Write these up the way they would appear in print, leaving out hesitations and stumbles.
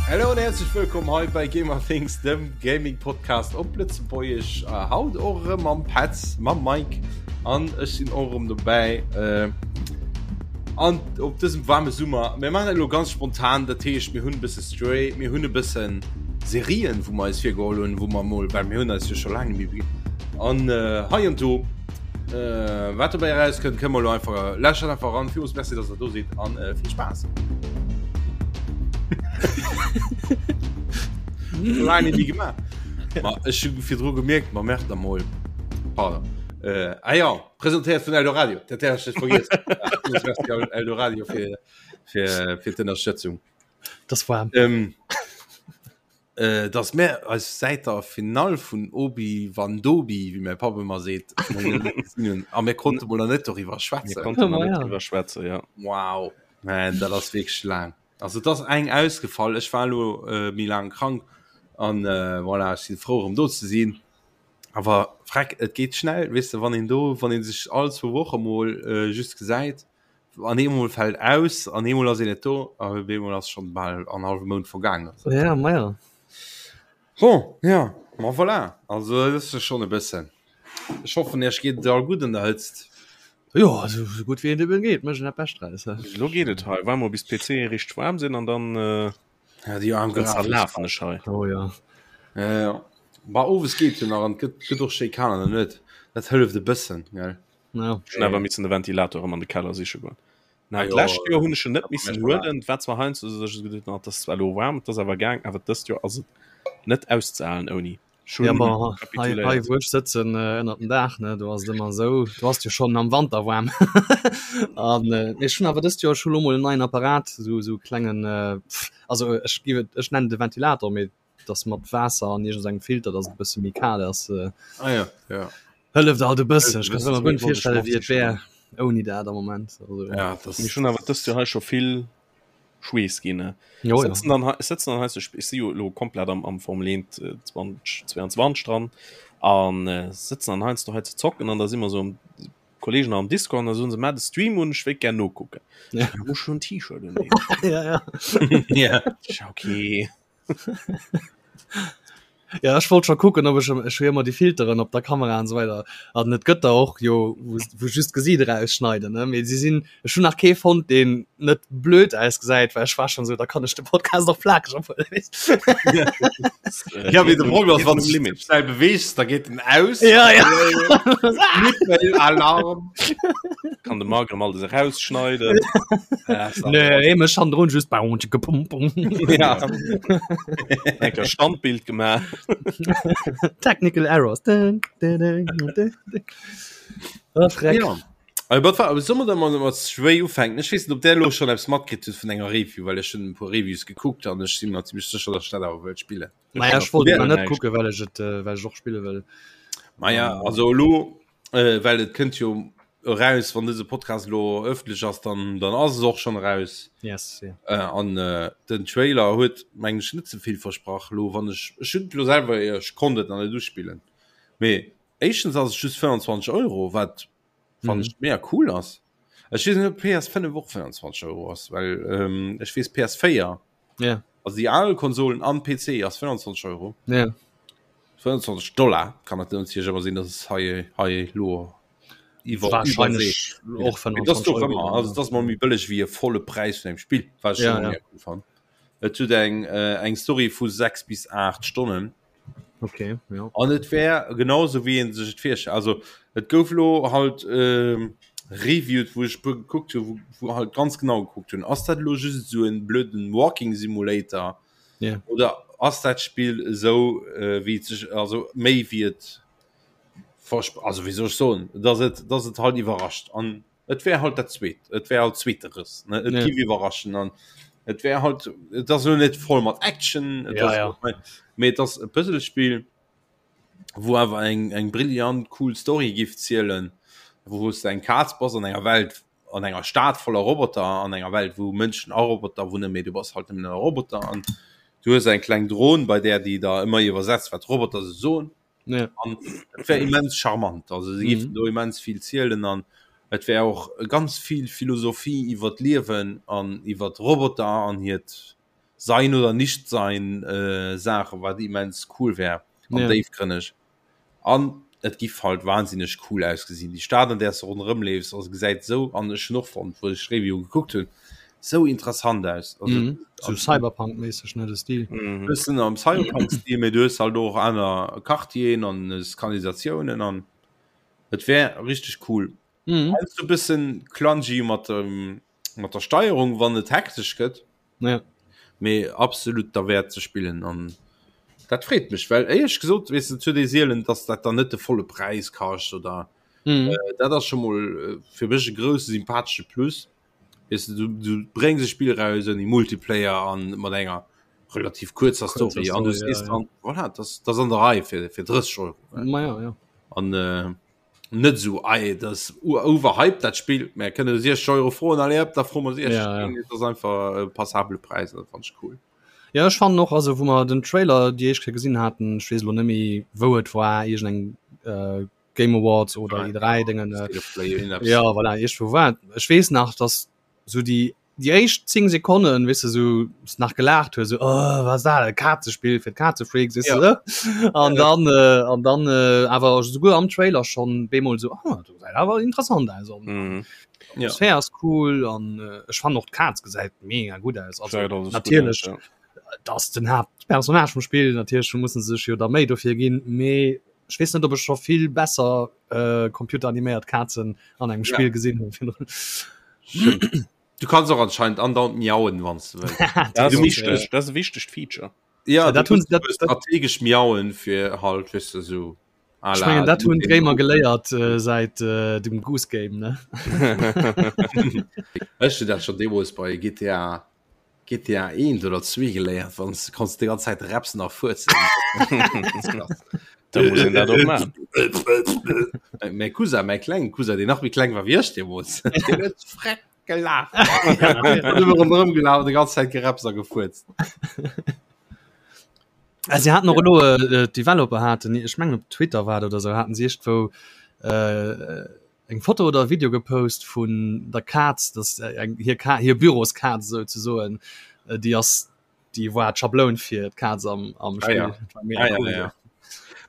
Hallo an herzlich wëllkomm hei bei Gamer Things, dem Gaming Podcast op Lëtzebuergesch. Äh, haut och erëm mam Petz, mam Mike an ech sinn och erëm dobäi. Äh, an op dësem waarme Summer. Mir maachen dat elo ganz spontan, dat heescht mir hunn e bësse Stray, mir hunn e bëssen Serien, wou mer eis virgeholl hunn, wou mer mol, well mir hunn eis jo scho laang net méi an äh, hei an do. Äh, wat dobäi erauskënnt, kënne mer elo einfach, lauschtert einfach eran. Villmools Merci, dass der do sidd an äh, vill Spaass. Laang net méi gemaach. Ma ech hu virdru gemierkt, ma merkt der mol. Pardon. Äh, ah ja, presentéiert vun Eldoradio. Dat hat ech net vergiess. Villmools Merci Eldoradio fir, fir, fir d'Ënnerstëtzung. Das war. Ähm, äh, dass mir eis säit der Finall vun Obi Wan Dobi, wéi mäi Papp ëmmer seet, gesinn hunn. A mir konnte mol nach net doriwwer Mir schwätzen. konnten nach Ja, net ja. driwwer schwätzen, ja. Wow, man, dat ass wierklech laang. Also et ass eng ausgefall. Ech war elo äh, méi laang krank an äh, voilà, ech sinn frou erëm do ze sinn. Awer freck, et geet schnell, weess de, wann een do, wann een sech all zwou Woche mol äh, just gesäit, an eemol fält aus an eemol ass een net do a op eemol ass schonn bal an hallwe Mount vergaangen. Ja, ma ja. Bon, ja, ma voilà, also dat ass jo schonn e bëssen. Ech hoffen, Iech geet et all gutt an der Hëtzt. Jo, esou esou gutt wéi et eben geet, mécht een dat Bescht draus, he. Elo geet et hei, waarde mol bis d'PCe richteg waarm sinn an dann Ja, déi aarm dann Grafik. zerlafen ech hei. Oh ja. Ja, ja. Bah, owes geet jo nach an et gëtt, gëtt och schéi kal an der Nuet. Dat hëlleft e bëssen, gell. Ja. Ech hunn awer missen de Ventilator erëm an de Keller siche goen. Na, Ah jo, d'lescht Joer hunn ech en net dat missen mécht man huelen. Et war zwar heiansdo esou, dass ech geduet hunn, ah, et ass zwar elo waarm, et ass awer gaang, awer dëst Joer ass et net auszehalen ouni. Ech Ja, hunn ma hei, hei kapituléiert. wou ech sëtzen äh, ënnert dem Daach, ne, do ass et ëmmer esou, do ass et jo schonn am Wanter waarm. An äh, mee ech hunn awer dëst Joer, ech hu lo mol en neien Apparat, esou esou klengen, äh, pff, also ech giff et, ech nennen et e Ventilator, mee et ass mat Waasser an iergend engem Filter, dass et e bësse méi kal ass. Äh, Ah ja, ja. hëlleft alt e bëssen. Ech Hëlleft e kann mer bëssen. guer net Wollt ech virstellen, och wéi et sichen. wär ouni dat am Moment. Also, Ja, das Mir hunn awer dëst Joer hei scho vill Schweess ginn. Ne? jo, ja. Sëtzen dann hei, sëtzen dann hei, so, ech si jo elo komplett am, am Formel 1 äh, 2022 dran an äh, sëtzen dann heiansdo hei ze zocken an da si mer so am Kollegen am Discord an da soen se, Maa de Stream un, ech wéilt gär nokucken. Ja. Ech muss schon T-Shirt un. ja, ja. ja. Okay. Ja, ech wollt schon kucken, ob ech ech hu jo ëmmer déi Filteren op der Kamera an esou weider an et gëtt der och jo wou wou just d'Gesiit erausschneiden ne, mee si sinn ech hunn nach kee fonnt deen net blöd ausgesäit, well ech war schon esou, da kann ech de Podcast och plakeg ophuelen weess. Ja, mee de Problem ass, wann du dech schnell beweegs, da geet en aus. Ja, ja. Nippel, Alarm. Kann de Marc erëm alles erausschneiden. Ja, das Nee, mech hannendrun just bau, tschicke, pum, pum. Ja. Enker Standbild gemaach. Technical Errors. Dun, dun, dun, dun, dun. Oh, Schreck. Ja. Aber wat war, soll mer da mal mat Stray ufänken? Ech weess net, ob der elo schon eppes matkritt hutt vun enger Review, well ech hunn e puer Reviews gekuckt an ech si mer zimmlech sécher, dass ech dat awer wëllt spillen. Naja, ech wollt Ja. et net kucken, well ech et, äh, well ech och spille wëll. Maja, also elo, äh, well et kënnt jo eraus, wann dëse Podcast elo ëffentlech ass, dann, dann ass es och schon eraus. Yes, ja. Äh, an äh, den Trailer huet meng ech net ze vill versprach lo wann ech ech hunn et lo selwer ech konnt et nach net uspillen. Mee éischtens ass et just 25 Euro, wat fannen Mhm. ech mega cool ass. Ech weess net ob PS5 och 25 Euro ass, well ähm, ech weess PS4 Ja, also déi al Konsolen an PC ass 25 Euro. ja. 25 Dollar kann dat natierlech awer sinn, dass es hei hei lo iwwer Wahrscheinlech och Mee das 25 doch Euro. ëmmer also das mal méi bëlleg wéi e volle Präis vun engem Spill wat ech Ja, schon ja. mega cool fand. Et huet eng äh, eng Story vu 6 bis 8 Stonnen Okay, ja. an et wär genauso wéi een sech et virstellt. Also et gouf lo halt ähm, reviewed, wou ech puer gekuckt hu, wou, wou halt ganz genau gekuckt hunn, ass dat elo just esou en blöden Walking Simulator Ja. oder ass dat Spill esou äh, wéi et sech also méi wéi et versp also wéi soll ech soen, dass et dass et halt iwwerrascht an Et wär halt dat zweet, et wär halt zweeteres, ne? Et Ja. giff iwwerraschen an et wär halt, et ass elo net voll mat Action, et Ja, ass ja. mee et ass e Puzzlespill, wou awer eng eng brillant cool Story giff zielen, wou s de eng Kaz bass an enger Welt, an enger Stad voller Roboter, an enger Welt wou Mënschen a Roboter wunnen, mee du bass halt nëmmen e Roboter an du hues eng kleng Dron bei där, déi der ëmmer iwwersetzt wat d'Roboter sou soen. Ja. An et wär immens charmant, also se géifen Mhm. do immens vill zielen an et wär och ganz vill Philosophie iwwer d'Liewen an iwwer d'Roboter an hiert. Sein oder nicht sein äh, Saache wat immens cool wär an ja. déifgrënneg. An et giff halt wahnsinneg cool ausgesinn. Déi Stad an där s de ronderëm leefs, also gesäit esou, an ech hunn och fonnt, wou ech d'Review gekuckt hunn, esou interessant aus. Also, mhm. So Cyberpunk-méisseg, ne, de Stil. Mhm. Bëssen am Cyberpunk-Stil, mee du hues halt och aner Quartieren an Kanalisatiounen an et wär richteg cool. Mhm. Heiansdo e bëssen clungy mat dem, mat der Steierung, wann et hektesch gëtt. Ja. Mee absolut derwäert ze spillen an dat freet mech, well éierlech gesot, weess de, et huet ee sielen, dass dat dann net de volle Präis kascht oder mhm. äh, dat ass scho mol äh, fir mech e grousse sympathesche Plus. Weess de, du, du bréngs e Spill raus ouni Multiplayer an mat enger relativ kuerzer Story an du sees ja, ja. dann, voilà, das, das an der Rei fir, fir 30 Euro. Ma ja, ja. An äh, net sou ei das overhyped dat Spiel mä kënne 60 Euro froen allez hop da froe mer 60 ja, ja. dat ass einfach e passabele Präis dat fand ech cool. Ja ech fannen och also wou mer den Trailer déi éischt Kéier gesinn haten, ech weess elo net méi wou et war, iergend eng äh, Game Awards oder E3 Déngen äh, State of Play irgendeppes. ja voilà iergendwou war et. Ech weess nach dass sou déi déi éischt 10 Sekonnen wis du so nach gelacht hues so, oh, was da Kazespiel fir Kazefreaks ja. ne? an ja. dann äh, an dann äh, awer souguer am Trailer schon bemol so oh, awer interessant also mhm. ja. Atmosphär ass cool an äh, ech fand och d'Kaz gesäit mega gut aus also, ja, das natierlech gut aus, ja. dass den Hauptpersonage vum Spiel natierlech mussen sech jo da méi dofir ginn mee ech weess net ob ech scho vill besser äh, computeraniméiert Kazen an engem Spiel ja. gesinn hunn. Du kannst och anscheinend andauernd miauen wann du wëlls. Dat Du ass musst wichteg, dat ass e wichtegt Feature. Ja, Ja, dat du hunn musst dat, dat, strategesch miauen fir halt weess de sou à ech la mengen dat hunn d'Gamer geléiert äh, säit äh, dem Goose Game ne. Ech hunn dat schon deemools bei GTA GTA 1 oder 2 geléiert, wann du konns déi ganz Zäit repsen a fuerzen. Da muss een dat och maachen. Mäi Cousin, mäi klengen Cousin, deen nach méi kleng war wéi ech deemools, deen huet freck gelaacht. Huet ëmmer ronderëm gelaf, déi ganz Zäit gerepst a gefuerzt. Ah, sie hatten och elo äh, d'Developer haten, ech mengen op Twitter war et oder sou, haten si iergendwou äh, eng Foto oder e Video gepost vun der Kaz, dass eng hir Ka hir Büroskaz souzesoen, déi ass déi war d'Schabloun fir d'Kaz am am Ah, ja. Spill. Dat war mega Ah, ja, cool. ja.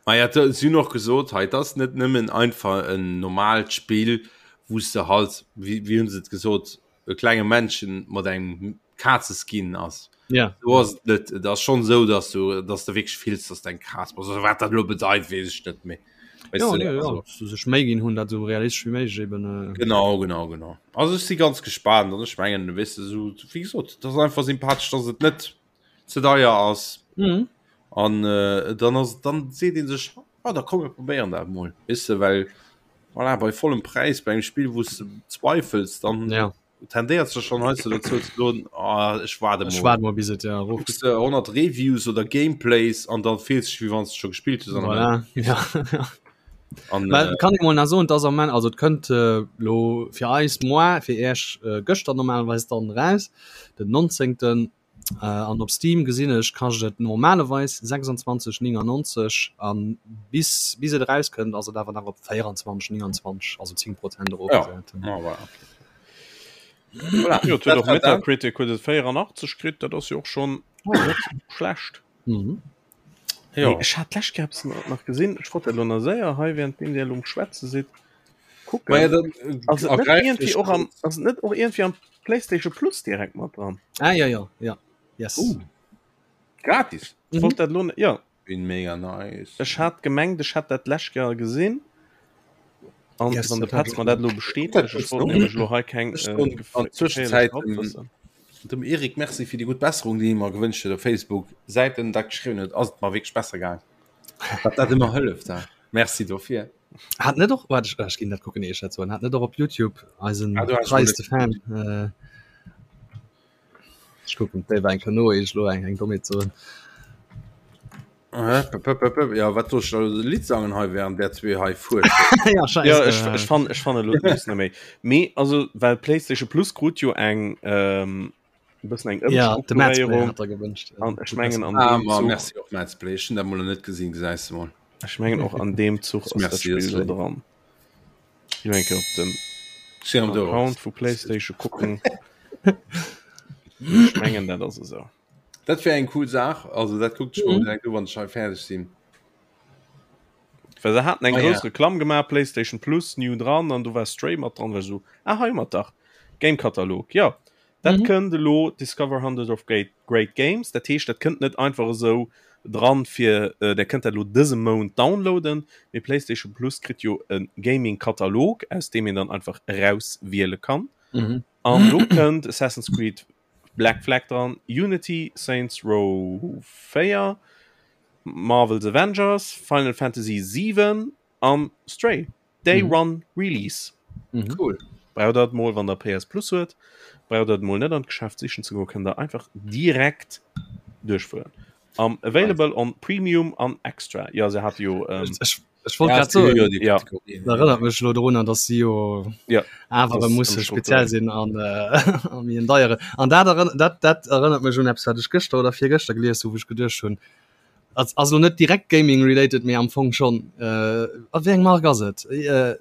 Ma ja, da- si hunn och gesot, hei, dat ass net nëmmen einfach en normalt Spill, wou s de halt, wéi, wéi hunn se et gesot, e klenge Männchen mat engem Kazeskin ass. Ja. So ass et net. Et ass schon sou, dass du, dass du wierklech fills, dass du eng Kaz bass. Also, wat dat elo bedeit, weess ech net méi. Weißt Ja, du, nee, ja. also, Dass se sech Méi ginn hunn, dat sou realistesch wéi méiglech eben. Äh, Genau, genau, genau. Also ech si ganz gespaant an ech mengen, weess de, sou, wéi gesot, dat ass einfach sympathesch, dass et net ze deier ass. mhm. An äh, dann ass, dann seet een sech, ah, da komm mir probéieren dat mol. Weess de, well voilà, bei vollem Präis bei engem Spill, wou s de zweifels, dann Ja. tendéiert sech schon heiansdo dozou ze soen, ah, ech waarde Ech mol. waart mol bis et ja erof Kucks de 100 Reviews oder Gameplays an dann fills dech wéi wann s de scho gespillt hues an am Voilà. Ja. An, Well äh, kann ee mol nach soen, dass am Moment, also et kënnt äh, lo fir eis moar, fir Iech äh, gëschter normalerweis dann raus, den 19. Äh, an op Steam gesinn ech kascht et normalerweis 26,99 an bis bis et erauskënnt ass et awer nach op 24,29, also 10 Prozent ja, erofgesat. ah, voilà, okay. Voilà, Jo, et huet dat och war dat. Metacritic huet et 84 kritt, dat ass jo och schonn net schlecht. Mhm. Jo. Nee, ech hat d'lescht Kéier eppes nach gesinn, ech wollt dat elo nach séier hei, währenddeem Dir elo um Schwätze sidd, kucken. Maja, dann Ass et net ergräift iergendwéi ech och am, kurz. ass et net och iergendwéi am PlayStation Plus direkt mat dran? Ah ja ja ja yes. Uh, gratis. Ech wollt dat elo, ja. Bin mega nice. Ech hat gemengt, ech hätt dat d'lescht Kéier gesinn. An Yes, wann de dat hat Petz ech mer dat elo bestätegt, ech wollt nämlech elo hei keng Ech äh, soen an geféierlech Zwëschenzäit dem, Halbwëssen. dem Eric Merci fir déi gutt Besserung, déi hie mer gewënscht huet op Facebook. Säit en dat geschriwwen huet, ass et mer wierklech besser gaang. Wat dat ëmmer hëlleft, he. Merci dofir. Hat net och warte, ech, ech ginn dat kucken, ier ech dat soen, hat net och op YouTube eisen Ah, du hast mol treiste Fan äh, ech kucken d'Déiwer eng Kéier no, ier ech elo eng eng Dommheet soen. Äh, p- p- p- p- Ja, wat soll ech da e Lidd sangen hei während der zwee hei fuerschen? ja, scheiße. Ja, ech, ech fan ech fan elo d'News net méi. Mee also well PlayStation Plus krut jo eng ähm, e bëssen eng ja, de Madsplay Ëmstrukturéierung hat er gewünscht. an ech mengen an Ah, deem ma, Zuch merci och Madsplay. Ech hunn dat mol net gesinn, gesäis de mol. ech mengen och an deem Zuch ass dat Merci, Spill das do léif. dran. Ich mein, op den Sinn am Dorf. Account vu PlayStation kucken. Ech mengen dat ass esou. Dat wär eng cool Saach, also dat kuckt ech mol direkt u wann ech hei fäerdeg sinn. Well se haten eng ah, grouss ja. Reklamm gemaach PlayStation Plus new dran an du war Stray mat dran war so ah, hei mat dach Game Katalog ja dat mhm. kënnt elo Discover 100 of Great, Great Games dat heescht dat kënnt net einfach esou dran fir äh, der kënnt dat lo dëse Mount downloaden mee PlayStation Plus kritt jo en Gaming Katalog aus dem een dann einfach rauswiele kann mhm. an do kënnt Assassin's Creed Black Flag dran, Unity, Saints Row 4, Marvel's Avengers, Final Fantasy 7 an Stray. Day mhm. One Release. Mhm. Cool. Braucht der mol wann der PS Plus huet, braucht der mol net an d'Geschäft sichen ze goen, kënnt der einfach direkt duerchfueren. Um, available on Premium an Extra. Ja se hat jo ähm, ech, ech wollt grad soen, jo, ja. erinnert mech lo drun, dass si jo ja, awer muss speziell sinn an äh, an mir deiere. An dat, dat, dat erinnert mech un eppes, wat ech gëschter oder virgëschter gelies hu, wou ech geduecht hunn, ass ass lo net direkt Gaming related, mee am Fong schonn. Äh, a wéi eng Mark ass et? Äh,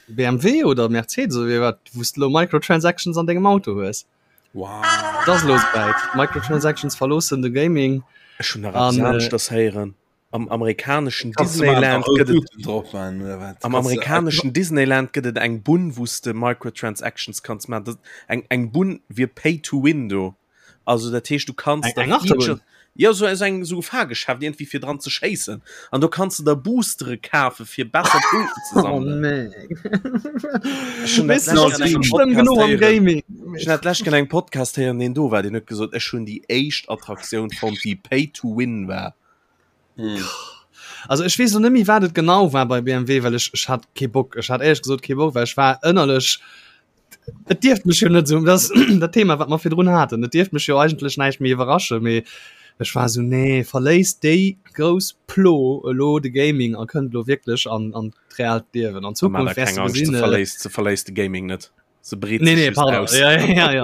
BMW oder Mercedes oder wéi wat, wou s de lo Microtransactions an dengem Auto hues? Wow. Dat ass lo souwäit. Microtransactions verloossen de Gaming. Ech hunn nach eppes aneschters héieren. Am amerikaneschen Disneyland gëtt et am amerikaneschen Disneyland gëtt et eng Bunn, wou s de Microtransactions kanns maachen. Dat eng eng Bunn wier Pay to Win do. Also dat heescht du kanns Eng Achterbunn? Jo sou eng sou Fahrgeschäft iergendwéi fir dran ze schéissen an do kanns de der Boostere kafe fir besser Punkten ze sammelen. Oh nee. Ech hunn dat d'lescht an engem Podcast héieren. Gaming. Ech hunn dat d'lescht an engem Podcast héieren, deen do war, deen huet gesot, ech hunn déi éischt Attraktioun fonnt, déi Pay to Win war. Hm. Also ech weess lo net méi wat et genau war bei BMW, well ech ech hat kee Bock. Ech hat éierlech gesot kee Bock, well ech war ënnerlech Et dierft mech jo net esou, dat dat Thema wat mer virdrun haten, et dierft mech jo eigentlech näischt méi iwwerrasche, mee ech war esou, nee, verléisst déi grouss Plo elo de Gaming a kënnt elo wierklech an an d'reaalt Liewen. An Zukunft wäers du gesinn. Se verléisst, se verléisst de Gaming net. Se breet nee, nee, pardon. aus. Ja, ja, ja.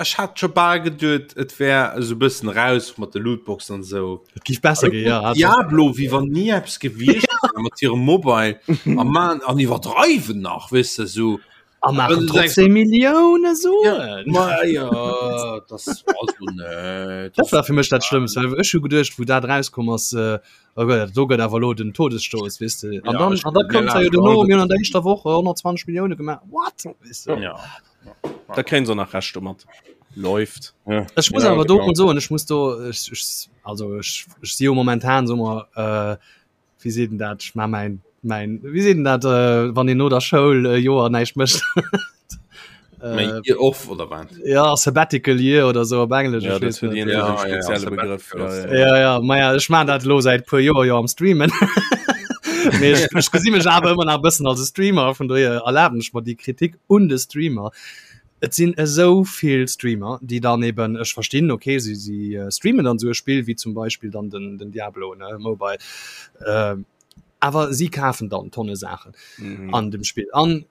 Ech hat scho bal geduet, et wär esou bëssen raus mat de Lootboxen an esou. Et giff besser ginn, ja. Diablo, wéi wann ni eppes gewiescht wär mat hirem Mobile a man an iwwerdreiwen nach, weess de, esou. A maachen trotzdem Millioune Suen. Ma jo, das also net. Dat war fir mech dat Schlëmmst, well ech hu geduecht, wou dat erauskomm ass, oh Gott, do gëtt awer elo den Todesstoß, weess de. An dann, an da koum jo duerno, mir hunn an der éischter Woch 120 Millioune gemaach. What? Weess de. Ja. Da kréien se nach Recht domat. Läuft. Ja. Ech muss ja, awer do mol soen, ech muss do ech, ech, also ech, ech si jo momentan so mer äh, wéi seet en dat, ech ma mäin mäin wéi seet en dat äh, wann een no der Schoul e Joer näischt mécht. Äh, Year off oder wat? Ja Sabbatical Year oder so op Englesch. Ja, dat huet ja, ja, spezielle Begrëff. Ja, ja. ja, ja, maja, ech man dat lo säit puer Joer jo am Streamen. Mee ech, ech gesi mech awer ëmmer nach e bëssen als e Streamer, vun dohier erlaben ech mer déi Kritik un de Streamer. Et sinn esou vill Streamer, déi dann eben, ech verstinn, okay, si, si streamen dann esou e Spill wéi zum Beispill dann den, den Diablo, ne, Mobile, awer si kafen dann Tonne Saachen an dem Spill an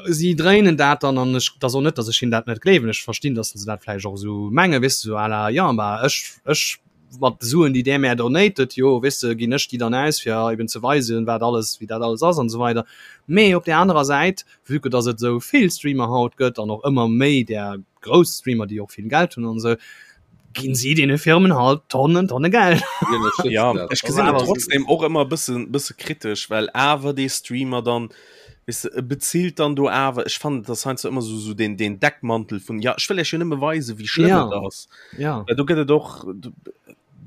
si dréinen dat dann an ech, et ass och net, datt ech hinnen dat net gleewen, ech verstinn, datt se dat vläicht och esou mengen, weess de, esou à la, jo, ma ech, ech mat de Suen, déi där mär donatet, jo, weess de, ginn ech déi dann aus, fir eben ze weisen, wat alles, wéi dat alles ass an esou weider. Mee op där anerer Säit, vue que datt et esou vill Streamer haut gëtt an och ëmmer méi där grouss Streamer, déi och vill Geld hunn an esou, ginn si deene Firmen halt Tonnen, Tonne Geld. Ja, ech gesinn et trotzdem och ëmmer e bëssen, bësse kritesch, well awer dee Streamer dann, weess de, e bezilt dann do awer, ech fannen, et ass heiansdo ëmmer esou, esou deen, deen Deckmantel vun, ja, ech wëll iech jo nëmme weisen, wéi schlëmm Ja. et ass. Ja. Well do gëtt et och,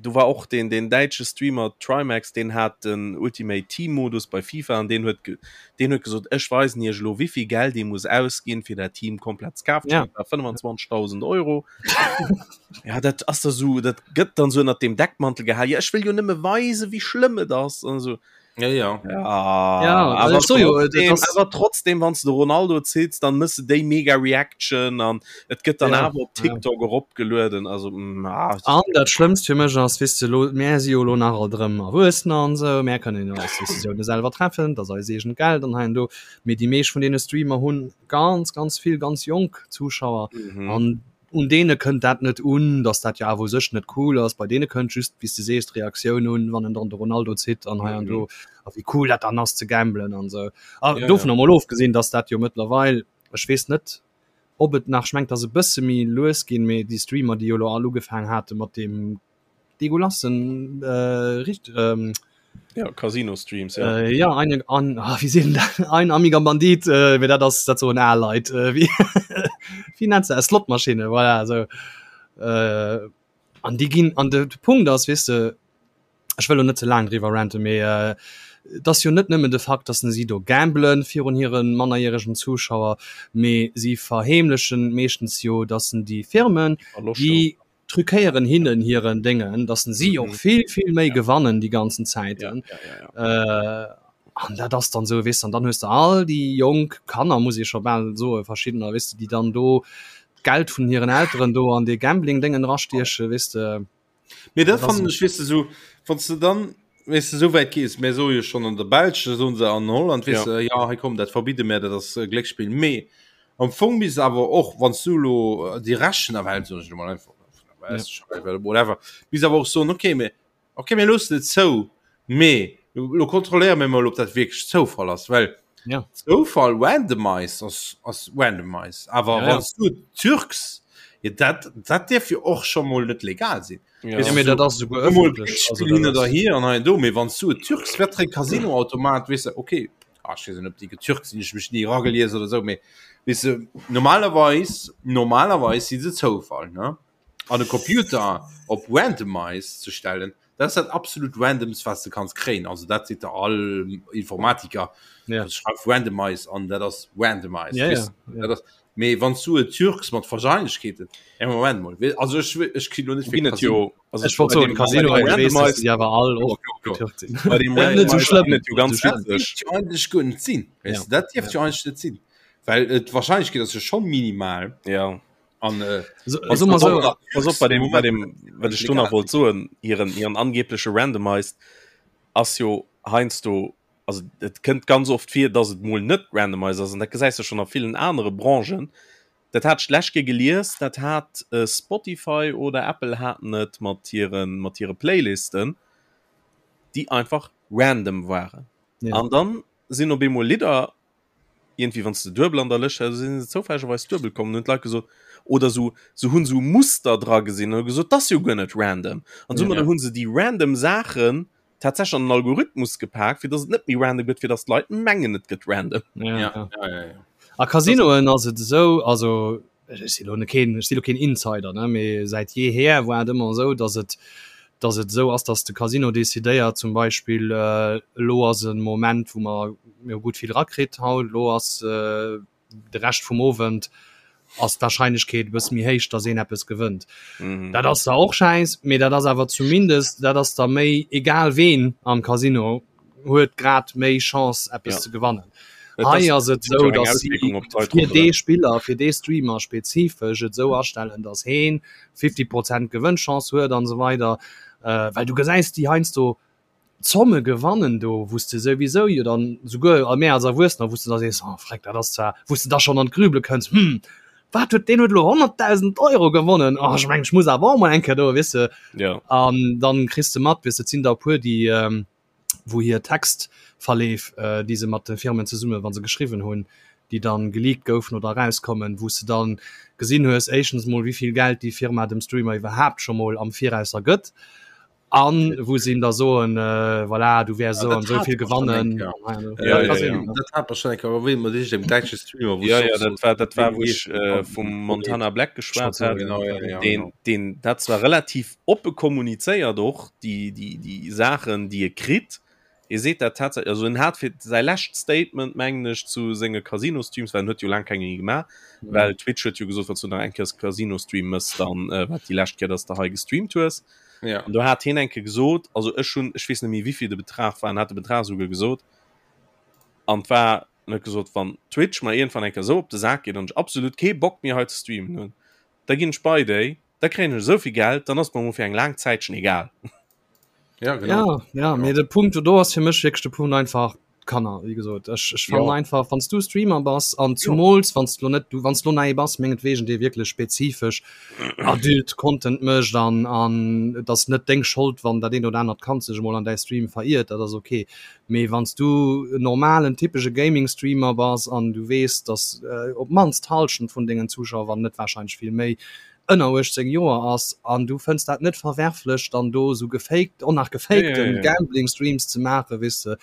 do war och deen, deen däitsche Streamer Trymacs, deen hat den Ultimate Team Modus bei FIFA an deen huet, deen huet gesot, ech weisen iech elo, wéivill Geld ee muss ausginn, fir dat Team komplett ze kafen. Ja. Dat war 25.000 Euro. Ja, dat ass da so, dat gëtt dann so ënnert dem Deckmantel gehal. Ja, ech wëll jo nëmme weisen, wéi schlëmm et ass an esou. Ja, ja. Ja, Ja, awer ech so jo, dat trotzdem, ass- awer trotzdem, wann s de Ronaldo ziits, dann mëss de déi mega Reaction an et gëtt dann Ja, awer op ja. TikTok eropgelueden. Also, mm, ah, An dat Schlëmmst fir mech ass, weess de, lo, mär si jo lo nach alt erëm Erwuessener an esou, mär kënnen jo eis Decisioune selwer treffen, dat ass eis eegent Geld an hei an do. Mee déi meescht vun deene Streamer hunn ganz, ganz vill ganz jonk Zuschauer mhm. an un deene kënnt dat net un, dass dat jo awer u sech net cool ass. Bei deene kënnt just, wéi s de sees, d'Reaktioun un, wann en dann de Ronaldo zitt an hei an do a wéi cool dat dann ass ze gamblen an esou. A Ja, dovun ja. emol ofgesinn, dass dat jo mëttlerweil, ech weess net. Ob et nach, ech mengen, et ass e bësse méi lues ginn, mee déi Streamer, déi jo elo all ugefaangen hate mat deem deguelassen äh, richt, ähm, ja, Casino-Streams, ja. Äh, ja, eine, an, ah, wie sinn dat? Ein amiger Bandit, äh, mee dat ass, dat soen al Leit. Äh, wie, wie nennt se? Slotmaschine, voilà, so. Äh, an déi ginn, an de, de Punkt ass, weess de, ech wëll lo net ze laang driwwer ranten, mee et ass jo net nëmmen de Fakt, dass si do gamblen virun hire mannerjäregen Zuschauer, mee si verheemlechen meeschtens jo, dass déi Firmen, déi truquéieren hinnen hiren Déngen, dass si och vill, vill méi gewannen déi ganzen Zäiten. An dat ass dann esou, weess de, an dann hues de all déi jonk Kanner, muss ee scho bal soen, verschiddener, weess de, déi dann do d'Geld vun hiren Elteren do an dee Gambling-Déngen erastiechen, weess de. Mee dat fannen ech, weess de, sou, wann s de dann, weess de, sou wäit gees, mär soe jo schonn an der Belsch, da soen se an Holland, weess de, ja hei komm, dat verbidde mär, dat ass Glécksspill. Mee am Fong misst awer och, wann s du elo déi Rechen erwählt, soen ech elo mol einfach, whatever, misst awer och soen, okay, mee okay, mir loossen et zou, mee lo kontrolléiere mir mol, ob dat wierklech Zoufall ass, well ja. Zoufall randomized ass, ass randomized. Awer ja, ja. du Türks ja, dat, dat dierf jo och scho mol net legal sinn. Ja. Ja, dat ass souguer ëffentlech. Da hier an do méi wann du Türks wett Casinoautomat wis okay ah, ich weiß ob die getürkt sind ich mich nie ragelies oder so méi wis du, normalerweis normalerweis si se Zoufall ne an de Computer op randomized ze stellen dat ass dat absolut randomst was du kanns kréien also dat seet der all Informatiker ja. schreif randomized an dat ass randomized ja, ja, ja. dat ass mee wann du et türks mat Wahrscheinlichkeeten ja, Moment mal also ech ech kritt lo net Ginn et jo also Ech wollt soen, Casino bei dem weess, dass Randomized déi awer all och getürkt sinn. bei dem Net sou Randomized schlëmm. ginn et jo ganz Net sou schlëmm. witzeg. jo eigentlech guer net sinn Ja. weißt du, dat dierft jo eigentlech net sinn well et d'Wahrscheinlichkeet ass jo schon minimal Ja. An, äh, so, also mal so, pass op, bei dem, bei dem, wat ech do nach wollt soen, hiren, hiren angebleche Randomized ass jo heiansdo, also et kënnt ganz oft vir, dass et mol net randomized ass, an dat gesäis de schonn a villen anere Branchen. Dat hat ech d'lescht Kéier gelies, dat hat äh, Spotify oder Apple haten et mat hiren, mat hire Playlisten, déi einfach random waren. Ja. An dann sinn op eemol Lidder Iergendwéi wann s de duebel an der Lëscht hat, sinn se zoufällegerweis duebel komm an hunn d'Leit gesot, oder sou, se hunn sou Muster dra gesinn an hu gesot, 't ass jo guer net random. An soumadder Ja. hunn se déi random Saachen tatsächlech an den Algorithmus gepak, fir dass et net méi random gëtt, fir dass d'Leit mengen, et gëtt random. Ja, Ja, ja. ja, ja, ja. A Casinoen ass et esou, also ech si lo keen, ech si lo keen Insider, ne, mee säit jeeher war et ëmmer esou, datt et, datt et esou ass, datt de Casino decidéiert, zum Beispill elo ass e Moment, wou mer, mir hu gutt vill rakritt haut, elo ass de Rescht vum Owend ass d'Warscheinlechkeet e bësse méi héich, datt een eppes gewënnt. Dat ass zwar och schäiss, mee dat ass awer zumindest, dat ass da méi egal ween am Casino huet grad méi Chance eppes ja. ze gewannen. Hei ass et sou, dass si fir dee Spiller, fir dee Streamer spezifesch et sou astellen, dass heen 50 Prozent Gewënnchance huet an esou weider. Äh, well du gesäis déi heiansdo Zomme gewannen do, wou s de souwisou jo dann souguer a mär als Erwuessener, wou s de da sees, oh freck, dat ass zwar, wou s de da schonn an d'Grübele kënns, hm, wat huet deen huet elo 100.000 Euro gewonnen, oh ech mengen ech muss awer och mol eng Kéier do, weess de. Ja. An dann kriss de mat, weess de, et sinn der e puer, déi ähm, wou hir Textverleef, äh, déi se mat de Firmen zesumme wa se geschriwwen hunn, déi dann geleakt goufen oder erauskommen, wou s de dann gesinn hues, éischtens mol wéi vill Geld déi Firma dem Streamer iwwerhaapt scho mol am Virausser gëtt an wou se him da soen, äh, voilà, du wäers Ja, esou dat an esou hat vill mer schon eng gewannen. Kéier. An hei an do. Ja, Ja, ja, kann ja. sinn. Dat hat mer schon eng Kéier erwähnt, mat iergendengem däitsche Streamer, wou Ja, s ja, och dat soos, war, dat war wéi wou ech geet äh, an vum Montana Black geschwat Schwat, ja. hat. Genau, ja, ja, Den, genau. den, dat zwar relativ oppe kommunizéiert och, déi, déi, déi Saachen, déi e kritt. E seet dat tatsächlech, also en hat fir säi lescht Statement, mengen ech, zu senge Casino-Streams, well en huet jo laang keng méi gemaach, well Twitch huet jo gesot, wann s du nach eng Kéier Casino-Stream mëss, dann äh, war et déi lescht Kéier, dass de hei gestreamt hues. Ja. An do hat hien eng Kéier gesot, also ech hunn, ech weess net méi wéivill de Betrag war, en hat de Betrag esouguer gesot, an et war, en huet gesot, wann Twitch mer iergendwann eng Kéier esou op de Sak geet an ech absolut kee Bock méi hei ze streamen hunn, da ginn ech bei déi, da kréien ech esou vill Geld, dann ass et mer emol fir eng laang Zäitchen egal. Ja, genau. Ja, ja, mee de Punkt do ass fir mech wierklech de Punkt einfach. Kanner wéi gesot ech ech fannen einfach wanns du Streamer bass an zumools wanns du lo net du wanns lo nei bass mengetwegen dee wierklech spezifesch adult Content mécht an an et ass net deng Schold wann dat eent oder anert Kand sech emol an däi Stream veriert dat ass ok mee wanns du en normalen typesche Gaming Streamer bass an du weess dass op d'mannst d'Hallschent vun dengen Zuschauer wann net warscheinlech vill méi ënner 18 Joer ass an du fënns dat net verwerflech dann do sou gefaked och nach gefakten Gambling Streams ze maachen weess de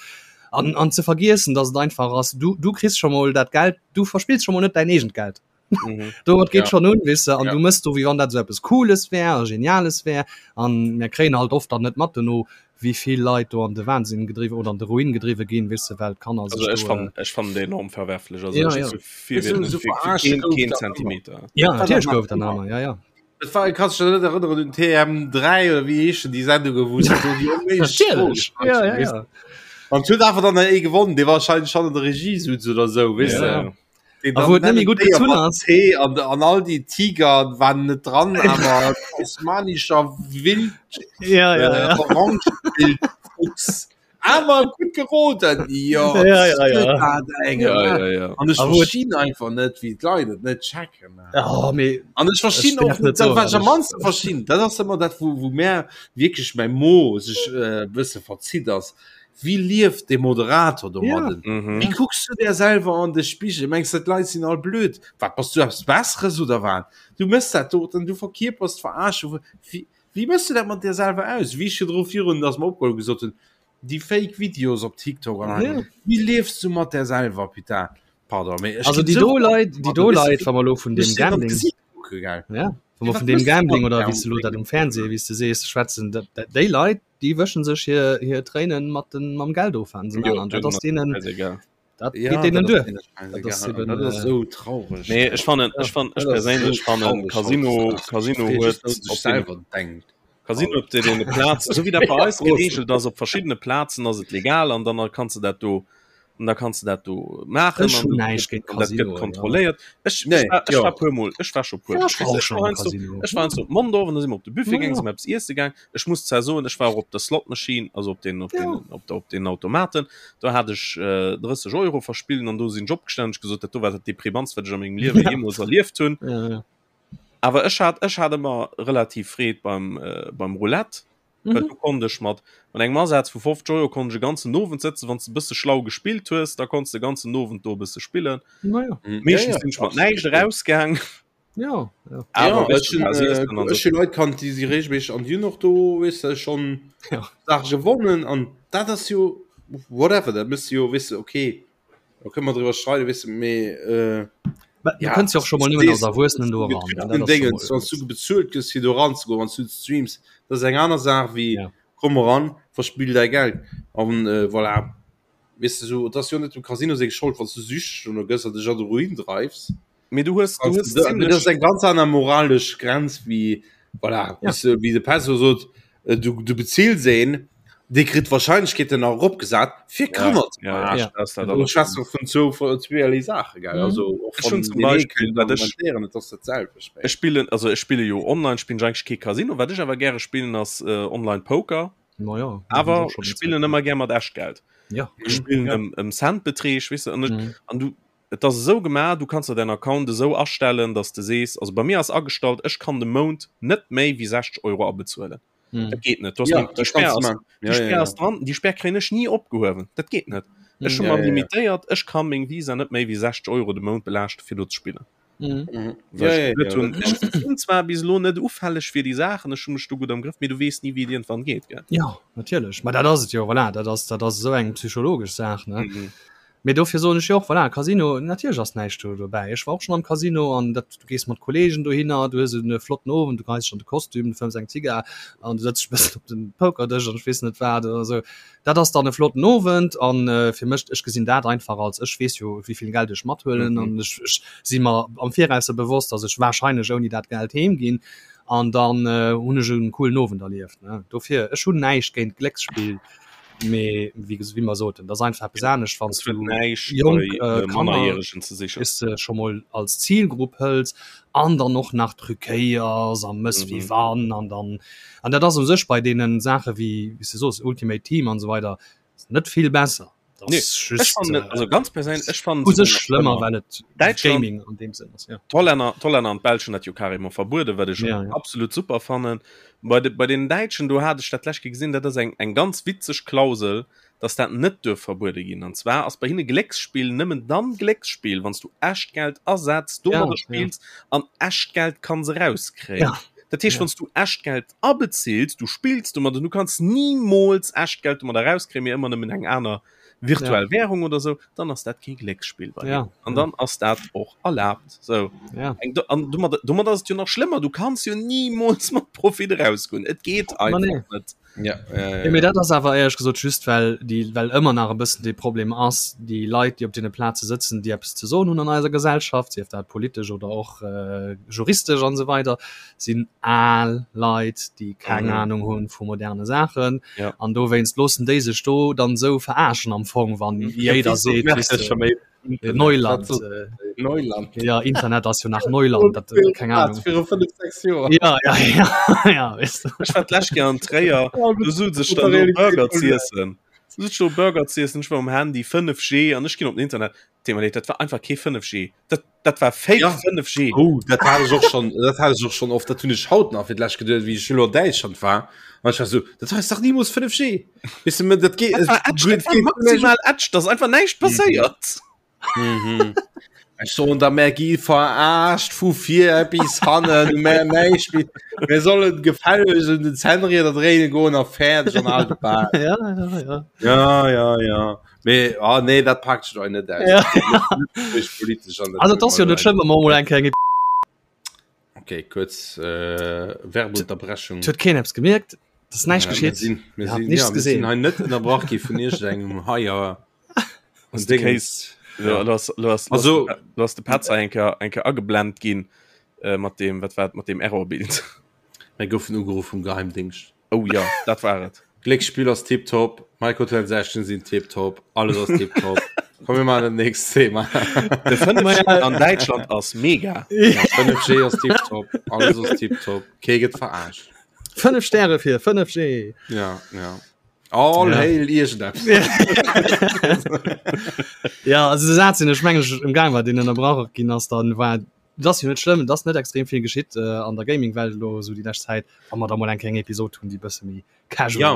an an ze vergiessen dass et einfach ass du du kriss scho mol dat Geld du verspills scho mol net däin eegent Geld mhm. domat geet ja. schon un weess de an ja. du mëss do wéi wann dat sou eppes cooles wär a geniales wär an mir kréien halt oft dann net mat dono wéi vill Leit do an de Wahnsinn gedriwwen oder an de Ruin gedriwwe ginn, weess de, well d'Kanner sech Also ech fannen, ech fannen déi enorm verwerflech. Also ja, ech ja. Fir, fir, so fir, fir keen, keen Zentimeter. Ja, natierlech gouf et dann aner, ja, ja. Et war, kannst du dich net erënneren un TM3 oder wéi heeschen déi Sendungen, wou se do déi onméiglech Froen gestallt Ja, ja, ja. An et huet einfach dann ee gewonnen, dee wahrscheinlech schon an der Regie sutz oder sou, weess de. Ja. A wou et net méi gutt gezunn ass. An, an all déi Tiger waren net dran, awer tasmanischer Wild ja, ja, äh, ja. Orange-Wildfuchs. Awer gutt geroden. Jo, ja, ja, ja. Eng, ja, ja, ja. An ech verstinn einfach net, wéi d'Leit et net checken. Oh, mee, an ech verstinn och net, dat wat ech am mannste verstinn, dat ass ëmmer dat, wou, wou mär wierklech mäi Mo sech äh, bësse verzitt ass. Wéi lieft dee Moderator domadden? Ja. Mhm. Wéi kucks du der selwer an de Spigel? Mengs de d'Leit sinn all blöd? Wat bass du eppes Besseres oder wat? Du mëss dat doten, du verkierpers d'Verarschung. Wéi, wéi mëss du dat mat dir selwer aus? Wéi ech virdru virun, dass mer opgeholl gesot hunn, déi fake Videos op TikTok an Ja. Wéi liefs du mat der selwer, putain? Pardon, mee ech Also ginn déi sou do Leit, déi an, do du weess, Leit, wa mer elo vun ech deem sinn an Gambling, d'Gesiit kucke, gell? ja, wa mer Wat vun deem mëss du mat Gambling oder wéi s der de elo dat um Fernseh, wéi s de sees, schwätzen, dat, dat, déi Leit, déi wëschen sech hir hir Tréinen mat den mam Geld of an Jo, an dat denen ass deenen scheißegal. dat Ja, geet deenen dat ass duer. deene Dat ass scheißegal. eben Dat ass äh, esou traureg. Nee, ech fannen, ja. ech fannen, ech Dat ass esou perséinlech fannen traureg Casino, hautdesdaags. Casino Fir huet just, datt sech op deene selwer denkt. Casino op deene Plazen, esou wéi dat bei eis geregelt ass, op verschiddene Plazen ass et legal an dann kanns de dat do an da kanns de dat do maachen Ech an hunn dat näischt gëtt géint an dat gëtt Casinoen, ja. kontrolléiert. Ech Nee, ech war ech jo. war puer mol ech war scho puer Ja, mol ech war och ech schon war am heiansdo Casino. ech war heiansdo op Mondorf an da si mer op de Buffet Ja, gaang, si ja. mer eppes iesse gaang. Ech muss zwar soen, ech war och op der Slot Machine, also op den op Ja. den op der op den Automaten, do hat ech äh, 30 Euro verspillt an do sinn ech opgestanen, hunn ech gesot, dat do war dat deprimantst wat ech a mengem Liewe Ja. jeemools erlieft hunn. Ja, ja. Awer ech hat ech hat ëmmer relativ Freed beim äh, beim Roulette. Well Mhm. du konnt ech mat mat engem Asaz vu 50 Euro konnt ech e ganzen Owend sëtzen, wann s de e bësse schlau gespillt hues, da konns de e ganzen Owend do e bësse spillen. Na ja. Mhm. Ja, Meeschtens ja, sinn ech mat absolut. näischt erausgaang. Ja, ja. Awer Ja, wéis ech du, hunn war äh, siessen an ech sou. hunn Leit kannt, déi si regelméisseg an déi hunn och do, weess de, schonn Ja. Saache gewonnen an dat ass jo whatever, dat mëss de jo, weess de, okay, da kënne mer driwwer streiden, weess de, mee äh, Mä du ja, kënns jo och scho mol nëmmen als sees, Erwuessenen do eran, an dat den ass scho Déngens, mol wann s du bezuelt gëss fir do eranzegoen, wann s du streams, dat ass eng aner Saach wéi Ja. komm eran, verspill däi Geld an äh, voilà. Weess de, sou, et ass jo net dem Casino seng Schold, wann s du süchteg dono gëss an dech an de Ruin dreifs. Mee du hues, du Kannst hues du, dat zimmlech ass eng ganz aner moralesch Grenz wéi voilà, Ja. wéi wéi de Pesso sot, äh, du, du bezills een, dee kritt d'Wahrscheinlechkeeten nach eropgesat fir ja, Kanner ze ja, ja, verarschen. Ja. dat ass dat Du allerschlimmst. schwätzt doch vun zwou vun zweeërlee Saache, gell? Mhm. Also och Ech hunn von zum den ee Beispill, kënnt wat ech argumentéieren, et ass dat selwecht méi. ech spillen, also ech spille jo online spillen ech eigentlech kee Casino, wat ech awer gäre spillen ass äh, online Poker, Ma ja, dat hunn ech awer och schonn ech eng Zäit spillen gemaach. ëmmer gär mat Echtgeld. Ja. Ech Mhm. spillen Ja. ëm ëm Centbeträg, weess de, an ech Mhm. an du Et ass esou gemaach, du kanns der däin Account esou astellen, dass de sees, also bei mir ass agestallt, ech kann de Mount net méi wéi 60 Euro abezuelen. Dat geet net. Du hast Ja, déi dat Spär kanns du ass, maachen. déi Ja, ja, Spär ja. ass dran, déi Spär kréien ech ni opgehuewen. Dat geet net. Ech hu Ja, mer ja, ja. limitéiert, ech ka meng Visa net méi wéi 60 Euro de Mount belaaschte fir do ze spillen. Mhm. Well Ja, ech ja, gesot ja, hunn, dat ech kanns du. sinn zwar bis elo net ufälleg fir déi Saachen, ech hu mech do gutt am Grëff, mee du weess ni wéi et iergendwann geet, gell? Ja, natierlech. Ma dat ass et jo, voilà, dat ass, dat ass esou eng psychologesch Saach, ne? Mhm. Mee dofir soen ech jo och, voilà, Casino, natierlech ass näischt do dobäi. Ech war och schonn am Casino an dat, du gees mat Kolleegen dohinner, du hues e flotten Owend, du geheis dech an de Kostüm, du fëmms eng Zigar an du sëtz dech e bëssen op den Pokerdësch an ech weess net wat oder esou. Dat ass dann e flotten Owend an fir mech, ech gesinn dat einfach als, ech weess jo wéi vill Geld ech mathuelen an ech, ech si mer am Virausser bewosst, datt ech warscheinlech ouni dat Geld heem ginn an dann hunn ech e coolen Owend erlieft, ne. Dofir, ech hunn näischt géint Glécksspill. Mee wéi ges wéi mer soten, dat ass einfach eppes anescht, wann Es huet du näischt jonk bei äh, äh, Kanner Mannerjäregen ze sichen. weess de, scho mol als Zilgrupp hëls an dann och nach truquéiers a mëss wéi Mhm. wann an dann an dat ass u sech bei deenen Saache wéi wéi s de soos Ultimate Team an esou weider net vill besser. Nee, ech fannen et, also ganz perséinlech, ech fannen u sech schlëmmer, well et Däitschland, Gaming an deem Sënn ass, ja. D'Hollänner, d'Hollänner an d'Belsch hunn dat jo carrément verbueden, wat ech Ja, ja. absolut super fannen. Bei de, bei den Däitschen, do hat ech dat d'lescht Kéier gesinn, dat ass eng, eng ganz witzeg Klausel, dass dat net duerf verbuede ginn. An zwar ass bei hinne Glécksspill nëmmen dann Glécksspill, wann s du echt Geld asetz, domadder Ja, ja. spills an echt Geld kanns erauskréien. Ja. Dat heescht, Ja. wann s du echt Geld abezilt, du spills domadder, du kanns nimools echt Geld domadder erauskréien, mee ëmmer nëmmen eng aner virtuell Ja. Währung oder sou, dann ass dat kee Glécksspill bei Ja, hinnen. An ja. dann ass dat och erlaabt. Sou. Ja. Eng, an domadder, domadder ass et jo nach schlëmmer, du kanns jo nimools mat Profit erausgoen. Et geet Ma einfach nee. net. Ja, ja, Ja, mee ja. dat ass awer éierlech gesot just well déi well ëmmer nach e bëssen dee Problem ass, déi Leit déi op deene Plaze sëtzen, déi eppes ze soen hunn an eiser Gesellschaft, sief dat politesch oder och äh, juristesch an esou weider, sinn al Leit, déi keng Mhm. Ahnung hunn vu moderne Saachen Ja. an dowéinst loossen déi sech do dann esou verarschen am Fong, wann Ja, jéider wéi sot seet, Merkel weess de, scho méi Neuland äh, Neuland ja Internet ass jo nach Neuland dat äh, keng Ahnung viru 5 6 Joer ja ja ja ja weißt du. Ech war d'lescht Kéier an Tréier, do sot sech dann do Burger z'iessen. Du sot do Burger z'iessen, ech war um Handy 5G an ech ginn op den Internet. Thema leed, dat war einfach kee 5G. Dat, dat war Fake Ja. 5G. Oh, dat hat ech och schon dat hat ech och schon oft dat hunn ech haut nach fir d'lescht geduet wéi ech elo an Däitschland war an ech war so dat ass dach nimools 5G Weess du, dat geet Dat war Edge, dat war maximal Edge, da ass einfach näischt passéiert. Mhm. Ech soen da mär gi verarscht vu vir bis hannen mär näischt méi. Mir sollen gefälleg un den Zännrieder dréine goen a fäerdeg an all de Bal. ja ja ja Ja, ja, ja. Mee ah, nee, dat packt ech net aus. Ja. Politisch an also dat ass jo net schlëmm wa mer mol eng Kéier eng Okay, kurz äh, Werbeunterbrechung. Et huet keen eppes gemierkt, et ass näischt Ja, mir geschitt. sinn, mir Ihr habt sinn, nichts ja, mir sinn gesehen. hei net ënnerbrach gi vun iergendengem Haier. Ass de Case. Ja. Du hast, du hast, Also- du hast de Petzer eng Kéier, eng Kéier ageblend ginn äh, mat dem, wat war et, mat dem Errorbild. Mir goufen ugeruff vum Geheimdingscht. Oh ja, dat war et. Glécksspill ass tiptop, Microtransactions sinn tiptop, alles ass tiptop. Komm mir maachen dat nächst Thema. De 5G an Däitschland ass mega. 5G ass tiptop, alles ass tiptop, kee gëtt verarscht. 5 Stäre fir 5G. Ja, ja. All Ja. hail iergendeppes. Ja, also de Saz, deen ech mengen ech ëmgaang war, deen ënnerbrach ginn ass, dann war Et ass jo net schlëmm, et ass net extrem vill geschitt äh, an der Gaming-Welt elo esou déi lescht Zäit, wa mer da mol eng kleng Episod hunn, déi bësse méi casual Ja,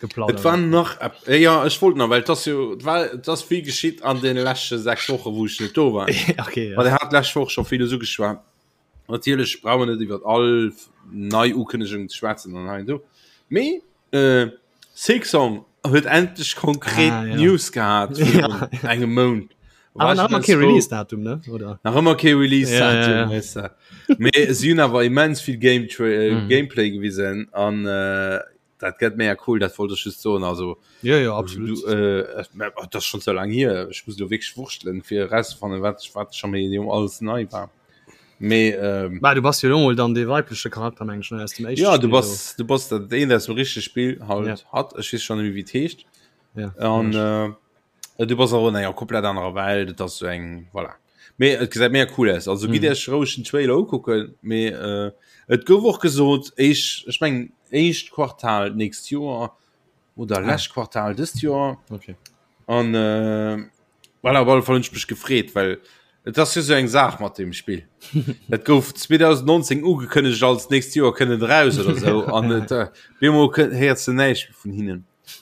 geplaudert et war nach äh, ja, ech wollt nach, well et ass jo et war et ass vill geschitt an den leschte 6 Woche wou ech net do war. okay, ja. Well der hat lescht Woch scho villes ugeschwat. Natierlech brauche mer net iwwer all nei Ukënnegung ze schwätzen an hei an do. Mee äh, Silksong huet endlech konkret Ah, ja. News gehat Ja. virun engem Mount. Awer War nach ich ëmmer ganz kee froh. Release-Datum, ne? Oder? Nach ëmmer kee Release Ja, ja, ja. weißt du. Mee si hunn awer immens vill Game äh, Mhm. Gameplay gewisen an äh, dat gëtt mega cool, dat wollt ech just soen. Also Ja, ja, absolut. du, äh, oh, dat ass schon so lang hier. Ech muss lo wierklech wurschtelen fir erauszefannen, wat wat scho méi alles nei war. Mee ähm, Bah, du bass jo lo mol dann dee weibleche Charakter, meng ech, ne, aus dem éischte Ja, du Spill bass du bass dat een aus dem richtege Spill halt Ja. hat ech weess schon net méi wéi et heescht. do. Ja. An äh, du bass och an enger komplett anerer Welt, et ass so eng voilà. Mee et gesäit mega cool aus. Also gitt Mhm. iech roueg den Trailer ukucken, mee äh, et gouf och gesot éischt ech mengen éischt Quartal d'nächst Joer oder lescht Quartal dëst Joer. Okay. An äh, voilà, op alle Fall hunn ech mech gefreet, well et ass jo sou eng Saach mat deem Spill. Dat gouf 2019 ugekënnegt als nächst Joer kënnt et eraus oder sou an et äh, bemol kënnt héiers de näischt méi vun hinnen.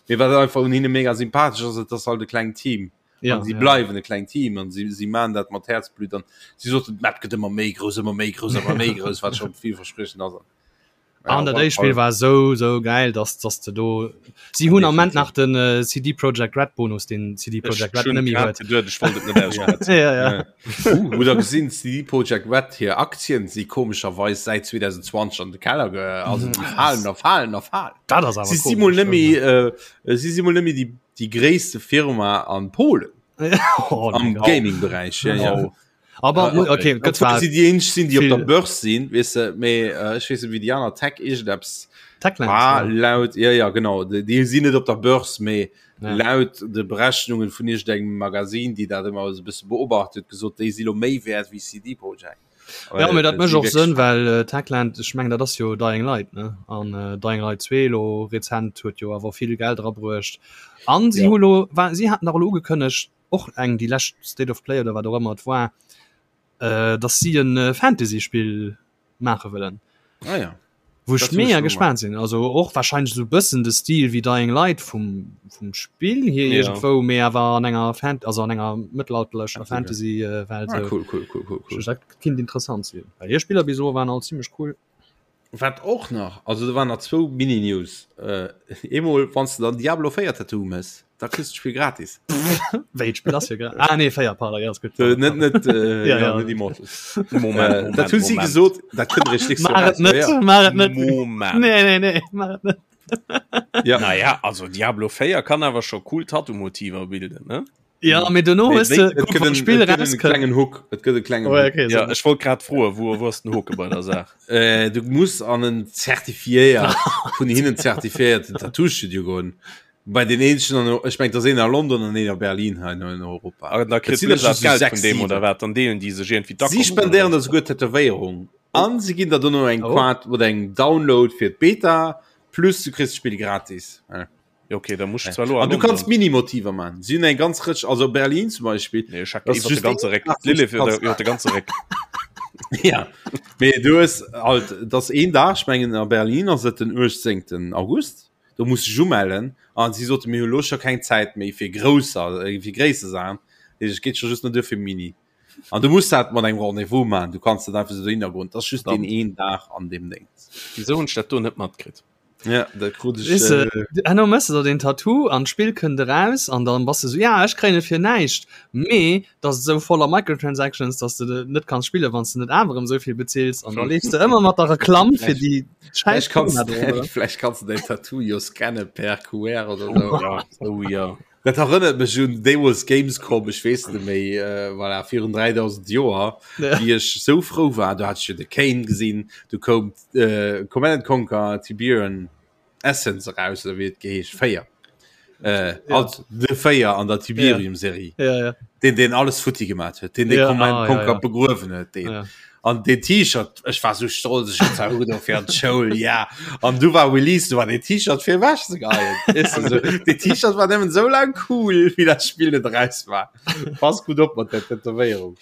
Mee wat einfach un hinne mega sympathesch ass, et ass halt e klengt Team. Ja, an si ja. bleiwen e klengt Team an si, si man dat mat Häerzblut an si soten d'Map gëtt ëmmer méi grouss, ëmmer méi grouss, ëmmer méi grouss, wat scho villverspriechend ass. An dat éischt Spill war sou sou geil, dass dass de do si hunn am Moment nach den äh, CD Projekt Red Bonus, den CD Projekt Red net méi huet. Ja, ja, ja. Uh, oder gesinn CD Projekt Red hir Aktien si komescherweis säit 2020 an de Keller ge also déi falen a falen a falen. Dat ass awer Si si mol komesch, net méi äh, si si mol net méi déi déi gréisste Firma an Polen oh, am mein Gott. Gaming-Beräich. Ja, ja. Oh. Aber Äh, okay, gëtt zwar si déi eenzeg sinn, déi op viel- der Börse sinn, weess de, mee äh, ech weess net wéi déi aner Tech iergendeppes Techland. war ja. laut ja ja genau déi déi sinn net op der Börse, mee Ja. laut de Berechnungen vun iergendengem Magazin, déi dat ëmmer esou e bësse beobacht huet, gesot, déi si lo méi wäert wéi CD Projekt. Ja, mee dat mécht och Sënn, well äh, Techland, ech mengen dat ass jo Dying Light ne an äh, Dying Light 2 lo rezent huet jo awer vill Geld erabruecht. An si ja. hu lo war si haten nach lo ugekënnegt och eng déi lescht State of Play oder wat och ëmmer et war, äh, dass si en äh, Fantasy-Spill maache wëllen. Ah, ja. Wou ech mega gespaant sinn. Also och wahrscheinlech sou bëssen de Stil wéi Dying Light vum, vum Spill hier ja. iergendwou, mee awer an enger Fan also an enger mëttelalterlecher Fantasy äh, Welt. Ah, cool, cool, cool, cool, cool. Dat kinnt interessant sinn. Well hir Spiller bis elo waren all zimmlech cool. Wat och nach, also do waren nach zwou Mini-News. Äh, eemol, wann s de dann Diablo 4 Tattoo mëss, da kriss du d'Spill gratis. Wéi d'Spill ass jo gra ah, nee 4 pardon, ja, ass gutt. Äh, net net äh, Ja, ja. net Immortals. Moment, Äh, Moment, dat hunn si Moment. gesot, dat kënnt eréischt nächst Joer Maach et raus. net, Ja, ja. maach et net. Moment. Nee, nee, nee, maach et net. Ja. Naja, also Diablo 4 kann awer scho cool Tattoo-Motiver bilden, ne? Ja, mee dono Nee, hues wéi- de et guck, gëtt wann en- d'Spill et gëtt en rauskënnt. klengen Hook. Et gëtt e klengen Oh, ja, Hook. okay, Ja, so. ech wollt grad froen, wou wou ass den Hoke bei der Saach? Äh, du muss an en zertifiéiert vun hinnen zertifiéierten Tattoo-Studio goen. Bei den eenzegen an ech meng, dat ass een a London an een a Berlin hei an Europa. Ah, da Et kritt sinn der Blizzard just sou Geld 6, vun deem 7. oder wat? Dann deelen déi sech iergendwéi Si d'Akommes oder spendéieren wat? der souguer d'Tätowéierung an si ginn der dono eng Oh. Quart oder eng Download fir d'Beta plus du kriss d'Spill gratis. Ja. Ja, okay, da muss ich zwar lo An du kannst Minimotiver man. Si hunn eng ganz Rëtsch, also Berlin zum Beispill. Nee, ech Das ist iwwer de just ganze Réck. Lilith iwwer iwwer de ganze Réck. Ja. Mee du hues halt, dat ass een Dag, ech mengen a Berlin ass et den 18. August, do muss du dech umellen an si sote mir hu lo scho keng Zäit méi fir grousser, äh, fir gréisser Saachen. Et geet scho just nach duer fir Mini. An du muss dat mat engem Rendez-vous man, du kanns net einfach sou dohinner goen. Dat ass just deen Verdammt. een Dag an deem Déngs. Wisou hunn ech dat do net matkritt? Ja, dat krut ech. Weess de, Äh, herno mëss de der den Tattoo an d'Spill kënnt eraus an dann bass de sou, ja ech kréien et fir näischt, mee dat ass esou voller Microtransactions, dass de de net kanns spillen, wann s de net awer erëm esou vill bezills an da leefs de ëmmer mat der Reklamm fir déi Vläicht schäiss kanns Firma do ronderëm. vläicht kanns du däin Tattoo jo scanne per QR oder sou. Ja, oh ja. Dat erënnert mech un deemools Gamescom, ech weess net méi, äh, voilà, virun 3000 Joer, Ja. wéi ech sou frou war, do hat ech jo de Kane gesinn, du koum äh, Command and Conquer Tiberian Essence eraus, oder wéi et geheescht, 4. Äh, Ja. also de 4 an der Tiberium-Serie. Ja, ja. Den, den alles futti gemaat huet, den den Ja, Command ah, ja, Conquer ja. begruewen huet, den. Ja. An den T-Shirt, ech war sou stolz, ech hat zwar ugedo fir an d'Schoul, ja. An du war Release, du war den T-Shirt fir ewech ze geheien. Weess de, sou. Den T-Shirt war nëmmen sou laang cool, wéi dat Spill net eraus war. Pass gutt op mat der Tätowéierung.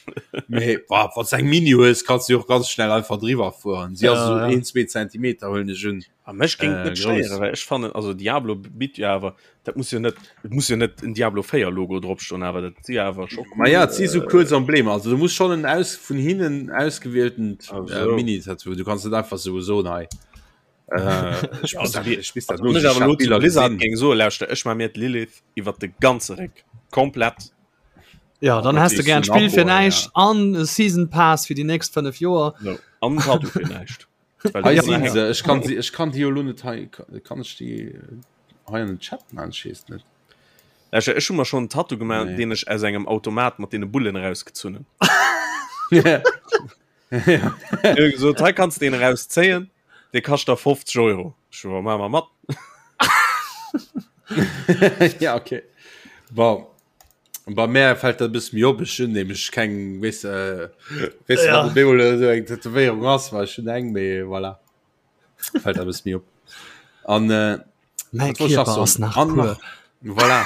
Mee, boah, wann s eng Mini hues, kanns du jo och ganz schnell einfach driwwer fueren. Si ass Ja, sou ja. een, zwee Zentimeter, huelen ech un. A mech géing et Äh, net grouss. stéieren, well ech fannen, also Diablo bitt jo awer, dat muss jo net, et muss jo net en Diablo 4 Logo drop stoen, awer dat si awer scho Ma cool. ja, et si sou kuerz Emblemer. Also du muss schon en aus vun hinnen ausgewieltent Ah, äh, sou. Mini-Tattoo. Du kanns net einfach sou soen, hei. Äh, ech Ja, muss also dat, wie, ech misst dat also wann ech nosichen. awer Ech elo hat zu Biller Blizzard gesinn. géing soen, lauschter, ech maa mir d'Lilith iwwer de ganze Réck, komplett. Ja, dann Dat has de weess gern du d'Spill nach, fir oh, ja. näischt an e Season Pass fir déi nächst 5 Joer. Sou, an en Tattoo fir näischt. Hei sinn se. Ech kann si, ech kann déi jo lo net hei, kann ech déi hei an den Chat man? Ech weess net. Ech, ech hu mer schonn en Tattoo gemaach, Nee. deen ech aus engem Automat mat deene Bullen erausgezunn hunn. Ja. Ech hu gesot, hei kanns de deen erauszéien, dee kascht der 50 Euro. Ech so, ma mer mat. ja, okay. Bon. Bei mär fällt dat e bësse méi op, ech hunn nämlech keng, weess de, weess de, Ja. wat op eemol esou eng Tätowéierung ass, well ech hunn eng, mee voilà, fällt dat e bësse méi op. An äh, Mäi wat wollt ech nach Kierper soen? ass nach An pur. nach, voilà,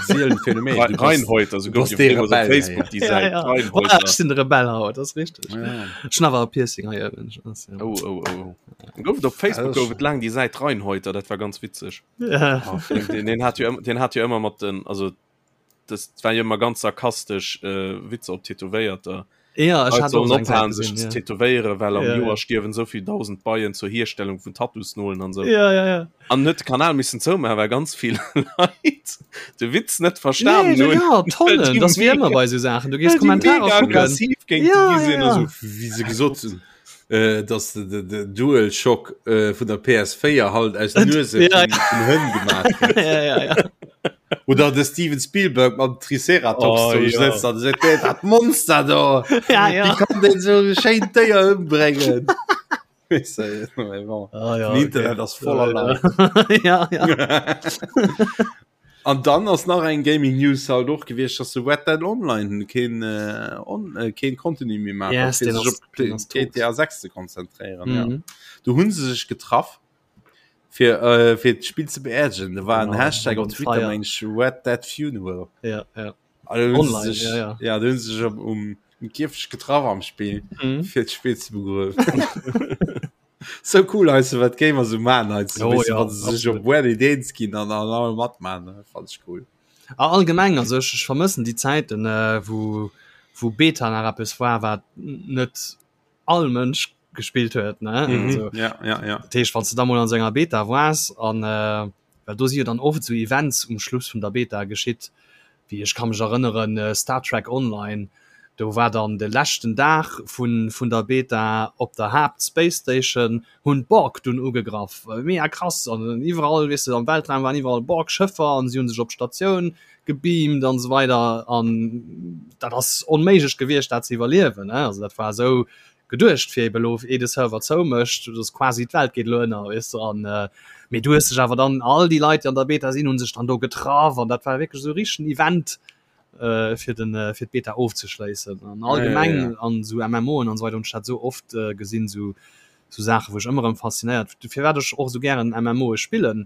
sielen Phänomen. Du bass, Reinhäuter, so du gouf bass jo dee deemools op Rebell, Facebook ja. déi Ja, Säit, ja. Voilà, Reinhäuter. ech sinn de Rebell haut, dat ass richteg. Ja. Ech hunn awer e Piercing hei ëwen. Das, ja. Oh, oh, oh. Gouf et op Ja, Facebook dat ass gouf et laang déi Säit Reinhäuter, dat war ganz witzeg. Ja. Oh, Den, den, den hat jo ëmmer, den hat jo ëmmer mat den, also das war jo ëmmer ganz sarkastesch äh, Witzer op Tätowéierter. Ja, ech Leit hat sollen och eng Säit ophalen sech gesinn, ze ja. tätowéieren, well am Ja, ja. Joer stierwen esou vill 1000 Beien zur Hierstellung vun Tattoosnolen an sou. Ja, ja, ja. An huet de Kanal missen zoumaachen, well ganz vill Leit de Witz net verstanen Nee, hunn. ja, Well déi Tonnen, das wie mega, ëmmer bei sou Saachen. Du gees well déi Kommentarer mega kucken. aggressiv géint Ja, déi gi ja, sinn a ja. sou. Wéi se gesot hunn, äh, dass de, de, de Dualshock äh, vun der PS4 halt aus Nuese Ja, vun, vun Hënn gemaach gëtt. ja, ja, ja. Oder de Steven Spielberg mam Triceratops Oh, do ja. sëtzt an seet, "Dee, dat Monster do, Ja, ja. wie kann den so schéin Déier ëmbréngen? Weess de, mais bon. Ah, ja, Den Internet okay. ass voller Leit. Ja, ja. An dann ass nach eng Gaming News halt och gewiescht, dass de Red Dead Online keen äh, on, äh, keen Contenu méi maacht, Yes, fir deen sech ass- op deen ass tot. GTA 6 ze konzentréieren. Ja. Mhm. Do hunn se sech getraff fir äh, fir d'Spill ze beerdigen. Da war en Genau, Hashtag op on Twitter fire. meng ech, Red Dead Funeral. Ja, ja. An dann hunn se Online, sech, ja, ja. ja, do hunn se sech um, um, um Kierfecht getraff am Spill Mhm. fir d'Spill ze begruewen. So cool heißt du, wat Gamer so man heißt du, Oh, weißt du, ja, wann se sech absolut. op weird Ideen ginn an an alle matman fand ich cool. A allgemeng also ech, ech vermëssen déi Zäiten äh, wou wou Beta nach eppes war wat net all Mënsch gespillt huet ne Mhm. also, Ja, ja, ja. dat heescht wann du da mol an senger Beta waars an äh, well do si jo dann oft sou Events um Schluss vun der Beta geschitt, wéi ech ka mech erënneren Star Trek Online, do war dann de leschten Dag vun vun der Beta op der Haapt Space Station hunn d'Borg dunn ugegraff, mega krass an iwwerall weess de am Weltraum waren iwwerall Borg Schëffer an si hunn sech op d'Statioun gebeamt an esou weider an dat ass onméiglech gewiescht dat ze iwwerliewen ne, also dat war esou geduecht fir eben elo ee de Server zoumécht, dass quasi d'Welt geet elo ënner, weess de, an mee du hues dech awer dann all déi Leit déi an der Beta sinn hunn sech dann do getraff an dat war wierklech esou e richtegen Event fir den fir d'Beta ofzeschléissen an allgemeng an esou MMOen an esou weider hunn ech dat esou oft gesinn, esou esou Saachen wou ech ëmmer erëm faszinéiert, firwat ech och esou gären MMOe spillen.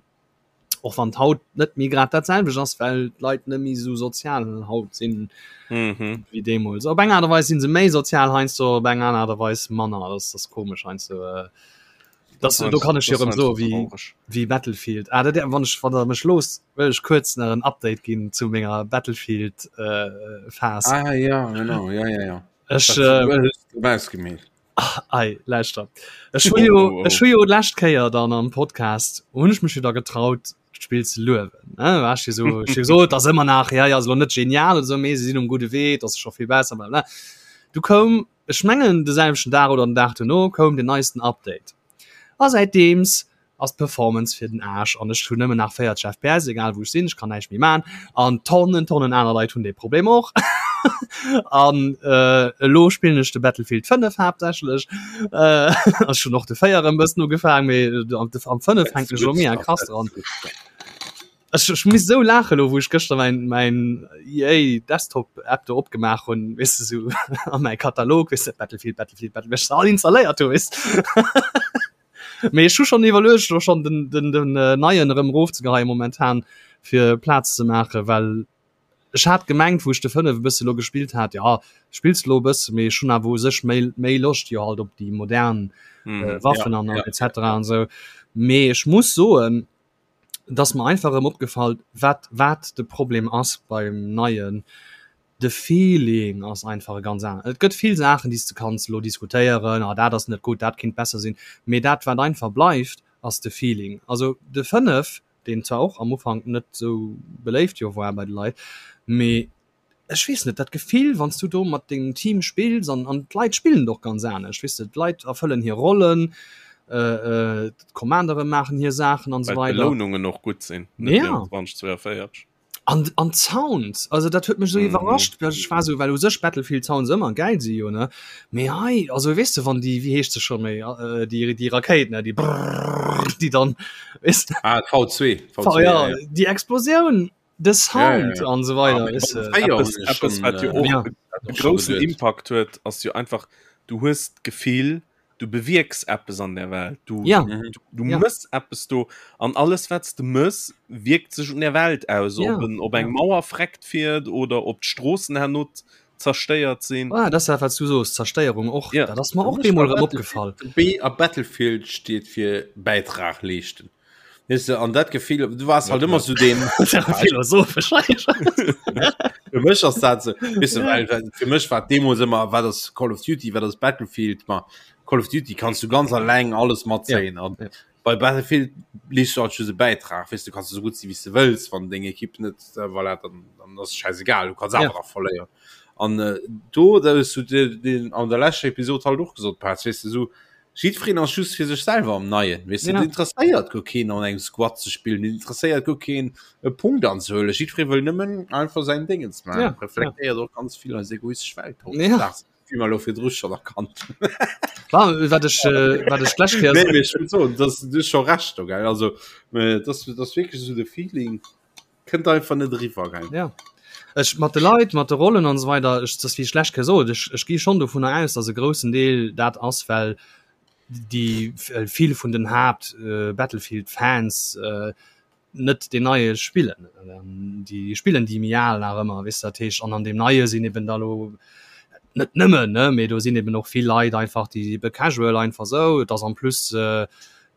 Och wann haut net méi grad dat selwecht ass, well d'Leit net méi esou sozial haut sinn mhm. wéi deemools. Op eng Aart a Weis sinn se méi sozial heiansdo, op eng aner Aart a Weis manner. Das ass komesch heiansdo. Äh, das, do kann ech jo erëm soen, wéi, wéi Battlefield. Ah, dat, wann ech, wann der mech loosst, wëll ech kuerz nach en Update ginn zu menger Battlefield äh, Phase. Ah ja, genau, ja, ja, ja. Ech, äh, ausgemeet. Ach, ei, lauschter. Ech hu jo, oh, oh. ech hu jo d'lescht Kéier dann am Podcast hunn ech mech jo da getraut, d'Spill ze luewen. Ne? War ech so, ech so, dat ass ëmmer nach, ja, ja, ass lo net genial oder so, mee se sinn um gudde Wee, dat ass scho vill besser, bla, bla. Du koum, ech mengen de selwechten Dag oder den Dag duerno koum den neisten Update. A säitdeems ass d'Performance fir den Aarsch an ech hunn nëmmen nach 40 FPS, egal wou ech sinn, ech kann näischt méi man an Tonnen, Tonnen aner Leit hunn dee Problem och. An äh, elo spillen ech de Battlefield 5 haaptsächlech. Äh, ech hunn och de 4 e bëssen ugefaangen, mee am am 5 hänken ech elo mega krass dran. Ech, ech muss esou laachen elo, wou ech gëschter mäin, mäin EA Desktop App do opgemaach hunn, weess de, sou an mäi Katalog, weess de, Battlefield, Battlefield, Battlefield, well ech se all installéiert hu, weess de. Mee ech hu schonn iwwerluecht elo schonn den, den, den äh, neien erëm erofzegeheien momentan fir Plaz ze maachen, well ech hat gemengt, wou ech de 5 e bësse lo gespillt hat, ja spills lo e bësse, mee ech hunn awer u sech méi, méi Loscht jo halt op déi modern Mhm. äh, Waffen Ja, an ja. etc an esou. Mee ech muss soen, dass mer einfach erëm opgefall, wat, wat de Problem ass beim neien. De Feeling ass einfach e ganz aneren. Et gëtt vill Saachen, déi s de kanns elo diskutéieren, ah dat ass net gutt, dat kinnt besser sinn, mee dat wat einfach bleift, ass de Feeling. Also de 5, deen zwar och am Ufank net esou beléift jo war bei de Leit, mee ech weess net, dat Gefill wann s du do mat dengem Team spills an an d'Leit spillen et och ganz anescht, weess de, d'Leit erfëllen hir Rollen, d'Commandere maachen hir Saachen an esou Well weider. d'Belounungen och gutt sinn, net wéi Ja. am 2042. An an d'Sounds, also dat huet mech esou Mhm. iwwerrascht, well ech war esou, well u sech Battlefield Sounds ëmmer gäil si jo ne, mee hei, also weess de wann déi, wéi heescht se scho méi, äh, déi déi Rakéit ne, déi brrrr, déi dann weess de, Ah, V2, V, V2, ja, ja, ja. déi Explosioun, de Ja, ja, Sound ja. an esou Ah, weider, mee weess beim de. Fréier Eppes, hunn ech eppes schon, wat jo äh, och Ja. e och schon groussen geduet. Impact huet, ass jo einfach, du hues d'Gefill, du bewierks eppes an der Welt du, ja. du, du ja. mëss eppes do an alles wat du mëss wirkt sech un der Welt aus ja. ob, en, ob eng ja. Mauer freckt fiert oder ob d'Stroossen herno zerstéiert sinn ah, das wat du soos Zerstéierung och ja. dat ass mer och deemol erëm opgefall B a Battlefield steet fir Bäitrag leeschten Weißt du, an dat Gefill du warst halt immer zu dem philosophisch Fir mech ass dat so, weißt du, well, well, fir mech war Demos immer wat das Call of Duty wat das Battlefield ma Call of Duty kannst du ganz alleng alles matzéien an ja. bei Battlefield liest du halt just e Bäitrag weißt du kannst du so gut si wie du wëlls wann deng Ekipp net äh, voilà, dann, dann ass scheißegal du kannst Ja. awer nach verléieren an äh, do da hues du den, den an der leschter Episode halt och gesot Pat, weißt du so Jiddwereen ass just fir sech selwer am Neien, weess de. Ja. Et interesséiert guer keen an engem Squad ze spillen, et interesséiert guer keen e Punkt anzehuelen. Jiddweree wëll nëmmen einfach säin Dingens maachen. Ja, ja. Reflektéiert och ganz vill eis egoistesch Welt Ja. hautdesdaags, wéi mer elo virdru schonn erkannt hunn. Wa, wat ech, äh, wat ech d'lescht Kéier Nee, mee ech wëll soen, dass, du hues scho Recht do, gell. Also, äh, dass, dass wierklech esou de Feeling. Kënnt einfach net eriwwer gell. Ja. Ech mat de Leit, mat de Rollen an esou weider, ech dat wéi ech lech gesot, ech ech gi schonn dovunner aus, datt e groussen Deel dat ass, well déi vill vun den Haapt äh, Battlefield Fans äh, net den neie spillen. Déi spillen déi méi al nach ëmmer, weess de, dat heescht an an deem neie sinn eben da lo net nëmmen ne, mee do sinn eben och vill Leit einfach déi ebe casual einfach sou, et ass en plus äh,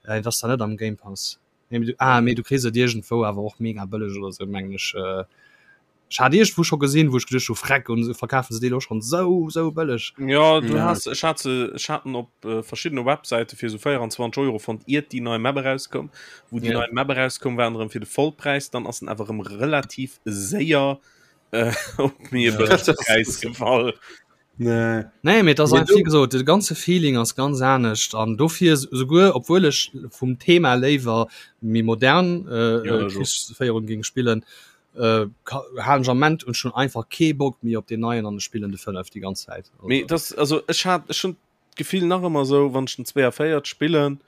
et ass da net am Game Pass. Nee, du, ah, mee du kriss et iergendwou awer och mega bëlleg oder sou mengen ech. Äh, ech hat iergendwou scho gesinn, wou ech geduecht hu freck und verkafen se déi lo schonn sou sou bëlleg. Ja du ja. has ech hat se ech haten op äh, verschiddene Webseite fir so 24 Euro fonnt iert déi nei Map erauskoum. Wou déi ja. nei Map erauskoum waren erëm fir de Vollpräis, dann ass en awer erëm relativ séier äh, op méi e bëllege Präis gefall. Nee. Nee, mee das einfach, wie gesot, de ganze Feeling ass ganz anescht an dofir souguer obwuel ech vum Thema léiwer méi modern äh, ja, äh, Krichsféierung ging spillen äh, halen ech am Moment und schon einfach kee Bock méi op den neien an spillen de 5 die ganz Zäit. Also. Mee das also ech hat ech schon d'Gefill nach ëmmer sou wann ech den 42 spillen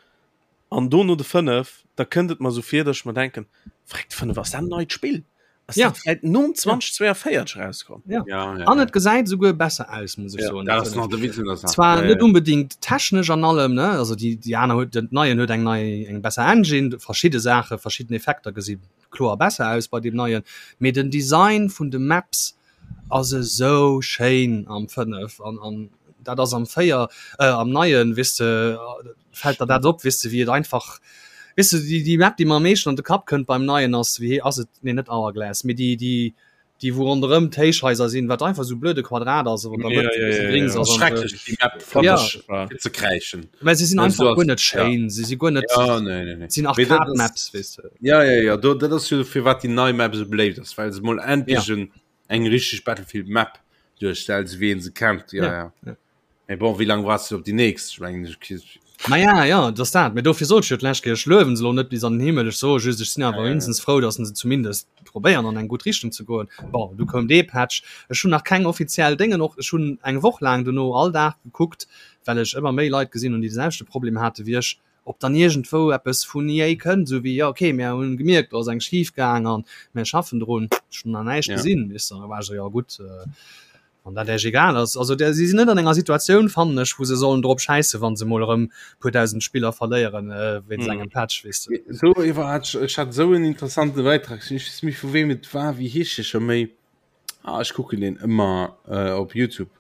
an dono de 5, da kënnt et mer sou vir, datt ech mer denken, Freck, de 5 ass dat en neit Spill? Ass Ja. dat vläit nom 2042 rauskomm? Ja. Ja, ja, An et gesäit souguer besser aus, muss ech Ja. soen. Dat ass nach de Witz un der Saach. Zwar Ja, net ja. unbedingt technesch an allem, ne? Also déi, déi aner huet, den neien huet eng nei, eng besser Engine, verschidde Saache, verschidden Effekter gesi kloer besser aus bei deem neien, mee den Design vun de Maps ass esou schéin am 5 an, an dat ass am 4, äh, am neien, weess de, fält der dat op, weess de, wéi et einfach, weess de, déi, déi Map, déi mer am meeschten an de Kapp kënnt beim Neien ass, wéi ass et, nee net Hourglass, mee déi, déi, déi wou ronderëm d'Héichhaiser sinn, wat einfach esou blöde Quadrat ass, wou an der Ja, Mëtt ja, e bësse ja, Grings ja. ass an esou. Schrecklech déi Map fand Ja. ech fir ze kräischen. Mä se sinn Also einfach ass- guer net schéin, se si guer net, Ja, nee, nee, nee. sinn Mee dat ass- Arcade-Maps, weess de. Ja, ja, ja, do, dat ass jo firwat déi nei Map esou beléift ass, well se mol endlech en, eng richteg Battlefield Map duerstellt, esou wéi een se kennt. Ja, Ja, ja. ja. Mee bon, wéi laang waars du op déi nächst? Ech mengen, ech Maja, ja, dat ass dat. Mee dofir sot ech jo d'lescht Kéier, ech luewen se elo net bis an den Himmel. Ech soe just, ech sinn awer Ja, ja. mindestens frou, datt se zumindest probéieren an eng gutt Richtung ze goen. Bon, du koum dee Patch. Ech hunn nach keng offiziell Déngen och. Ech hunn eng Woch laang dono all Dag gekuckt, well ech ëmmer méi Leit gesinn hunn, déi de selwechte Problem hate wéi ech, ob dann iergendwou eppes vun EA kënnt, esou wéi, jo okay, mir hunn gemierkt, do ass eng schif gaang an mir schaffen drun. Ech hunn nach näischt Ja. gesinn, weess de. Da war ech esou, jo gutt, Wann dat Iech egal ass. Also der, si sinn net an enger Situatioun, fannen ech, wou se sollen drop schäissen, wa se mol erëm puer dausend Spiller verléieren wéinst engem Patch, weess de. Do iwwer hat ech, ech hat esou en interessante Bäitrag gesinn, ech weess net méi vu wem et war, wéi heescht dee scho méi? Ah, ech kucken deen ëmmer op Youtube,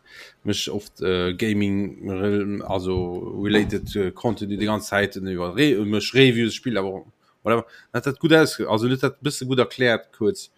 mécht oft Gaming, also related Contenu déi ganz Zäit iwwer, mécht Reviews, spillt awer och, whatever, hat dat gutt ausge, also huet dat e bësse gutt erkläert kuerz.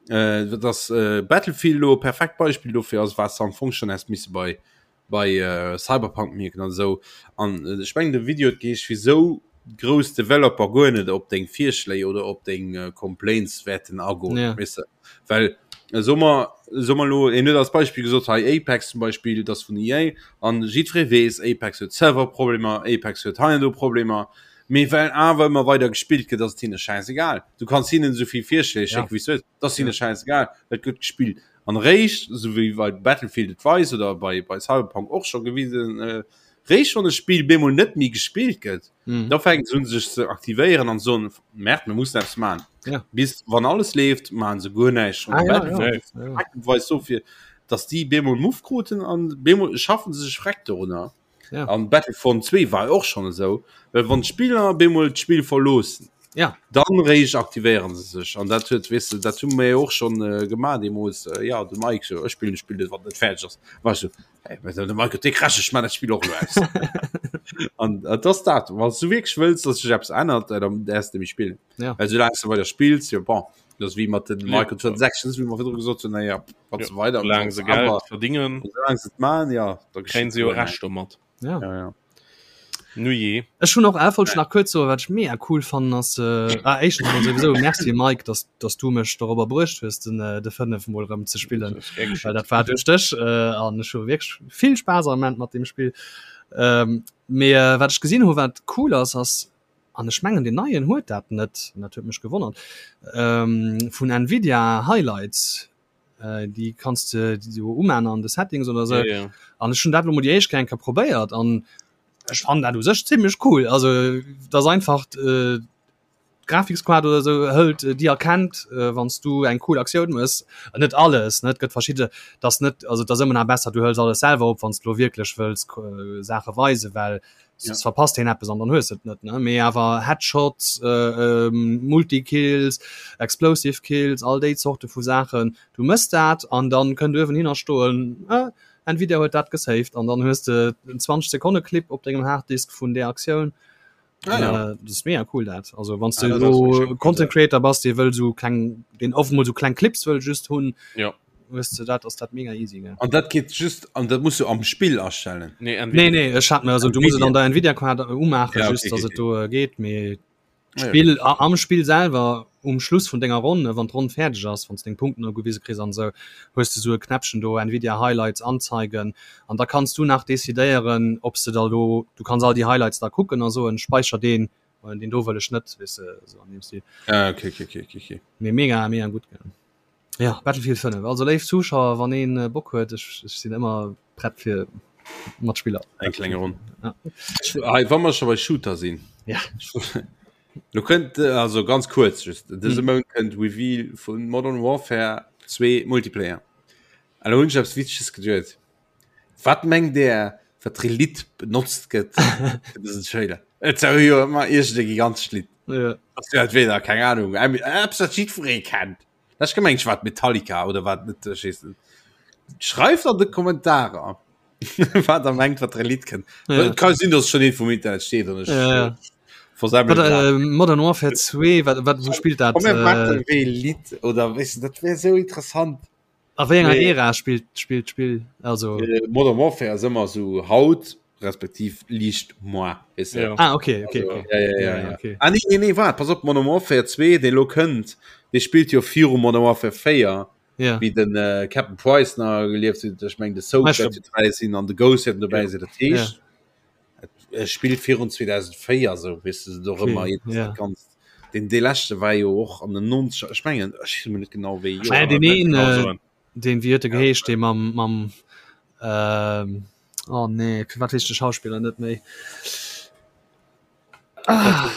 Äh, dass äh, Battlefield lo perfekt Beispiel dofir ass, was am Fong schon häss misse bei bei äh, Cyberpunk mierken an esou. An äh, ech mengen de Video huet geheescht, wisou grouss Developer guer net op deng Virschléi oder op deng äh, Complaints wäerten agoen, Ja. weess de. Well äh, so mer so mer lo en huet als Beispiel gesot hei Apex zum Beispiel, das vun EA an jiddweree weess Apex huet Serverproblemer, Apex huet hei an do Problemer. Mee well awer ëmmer weider gespillt gëtt, ass et hinne schäisegal. Du kanns hinnen esou vill Virschléi schécken, wéi s du wëlls, et ass hinne schäisegal, et gëtt gespillt. An eréischt, esou wéi bei Battlefield et weist oder bei, bei Cyberpunk och scho gewisen, eréischt wann e Spill bemol net méi gespillt gëtt, da fänken se un sech ze aktivéieren an soen, Merde, mir mussen eppes maachen. Bis wann alles leeft, maache se guer näischt. An Battlefield weist dofir, datt déi bemol Muff kruten an bemol schaffen se sech freck dorunner. Ja. An Battlefront 2 war och schon esou, well wann d'Spiller bemol d'Spill verloossen, ja. dann réischt aktivéieren se sech. An dat huet weess de, dat hu mir jo och schon äh, gemaach deemools. Äh, ja, de Mike so, ech spillen Spill net, wann net fäerdeg ass. War ech so, hey, de Mike huet dee Crash, ech man dat Spill och elo aus. An äh, das dat, wann du wierklech wëlls, dass sech eppes ännert, äh, dann däerfs de méi spillen. Ja. Well soulaang du weider spills, jo bon, das ass wéi mat den Microtransactions, wéi mer virdru gesot hunn, naja, wann Ja, se weider Solange se Geld awer verdingen, solange se et man, ja, da kréien se jo Recht domat. Ja. Ja, ja. Nu je. Ech hunn och äh, wollt ech nach kuerz soen, wat ech mega cool fannen ass äh, ah, éischtens mol souwisou Merci Mike, dass, dass du mech dorobber bruecht hues den, äh, de 5 mol erëm ze spillen. Well dat war duerch dech äh, an ech hu wierklech vill Spaass am Moment mat deem Spill. Ähm, mee äh, wat ech gesinn hu wat cool ass, ass an ech mengen den neien huet dat net, an dat huet mech gewonnert, ähm, vun Nvidia Highlights, äh, déi kanns de jo umaan an de Settings oder sou. Ja, ja. An ech hunn dat lo mol déi éischt Kéier eng Kéier probéiert an ech fannen dat u sech zimmlech cool. Also dat ass einfach äh, D'Grafikskaart oder sou hëlt déi erkennt wann s du eng cool Aktioun mëss. Net alles ne, et gëtt verschidde dass net also et ass ëmmer nach besser du hëls alles selwer op wann s du lo wierklech wëlls Saache weisen, well soss verpasst een eppes an dann hues de et net ne. Mee awer Headshots, Multikills, Explosive Kills, all déi Zorte vu Saachen, du mëss dat an dann kënnt uewen hinner stoen Nvidia huet dat gesaved an dann hues de en 20 Sekonne Clip op dengem Harddisk vun där Aktioun. Ah, ja. Äh, das ist mega cool dat also wann ah, du Content Creator bass dir wëll so kleng den oft mal so kleng Clips wëll just hunn ja weißt du dat ass dat mega easy gell? An dat geht just an dat musst du am Spiel erstellen nee, nee, nee ech hat mir also du musst an der Nvidia Card ummachen ja, okay, just, okay, okay. do äh, geht mir ah, Spiel ja. am Spiel selber um Schluss vun denger Ronn wann d'Ronn fäerdeg ass wann deng Punkten ugewise kriss an sou hues du sou e Knäppchen do Nvidia Highlights anzeigen an da kanns du nach decidéieren ob s de da lo du kanns all déi Highlights da kucken a soen speicher deen oder deen do wëll ech net weess de sou an deem Stil. Ah, okay, okay, okay, okay, okay. Mee mega mega gutt gell. Ja Battlefield 5 also léif Zuschauer wann een äh, Bock huet ech, ech sinn ëmmer prett fir Matspiller. Eng kleng Ronn. Ja. Hei, wa mer scho bei Shooter sinn. Ja. Lo kënnt äh, also ganz kuerz just dëse mm. Mount kënnt Reveal vun Modern Warfare 2 Multiplayer. An lo hunn ech eppes Witzeges geduet. Wat mengt der, wat fir e Lidd benotzt gëtt fir dësen Trailer? Et ass jo ëmmer iergend e gigantescht Lidd. Ja. Ass jo entweder, keng Ahnung, eppes wat jiddweree kennt. Ech gemengt, wat Metallica oder wat net, ech weess net. Schreift an de Kommentarer, wat der mengt, wat fir e Lidd kënnt. Ja. Et ka sinn, dass schonn eent vum Internet steet an ech Ja, ja. versemmel Wat, grad. äh, Modern Warfare 2, wat, wat, wou spillt dat? Komm, mir Äh, maachen wéi e Lidd oder weess de, dat wär esou interessant. A wéi enger Nee. Ära spillt spillt d'Spill? Also äh, Modern Warfare ass ëmmer so haut respektiv liicht moi weess de. Ja. Ah okay, okay, Also, okay. ja, ja, ja, ja. okay. Ah, nee, nee, nee, wart, pass op, Modern Warfare 2, dee lo kënnt, dee spillt jo viru Modern Warfare 4, Ja. wéi den äh, Captain Price nach gelieft huet, ech meng de Soap Weißt du- wäert jo dobäi sinn an de Ghost wäert dobäi Ja. sinn, dat heescht, et spillt virun 2004, sou, weess de, do Okay, ëmmer jedes ja. dat Ganzt. Den dee leschte war jo och an den 90er, ech mengen, ech weess emol net genau wéi Ah, Joer. deen een, Genau äh, soen. deen, wéi huet e geheescht, dee mam, mam, ähm, oh nee, firwat weess ech de Schauspiller net méi? Ah,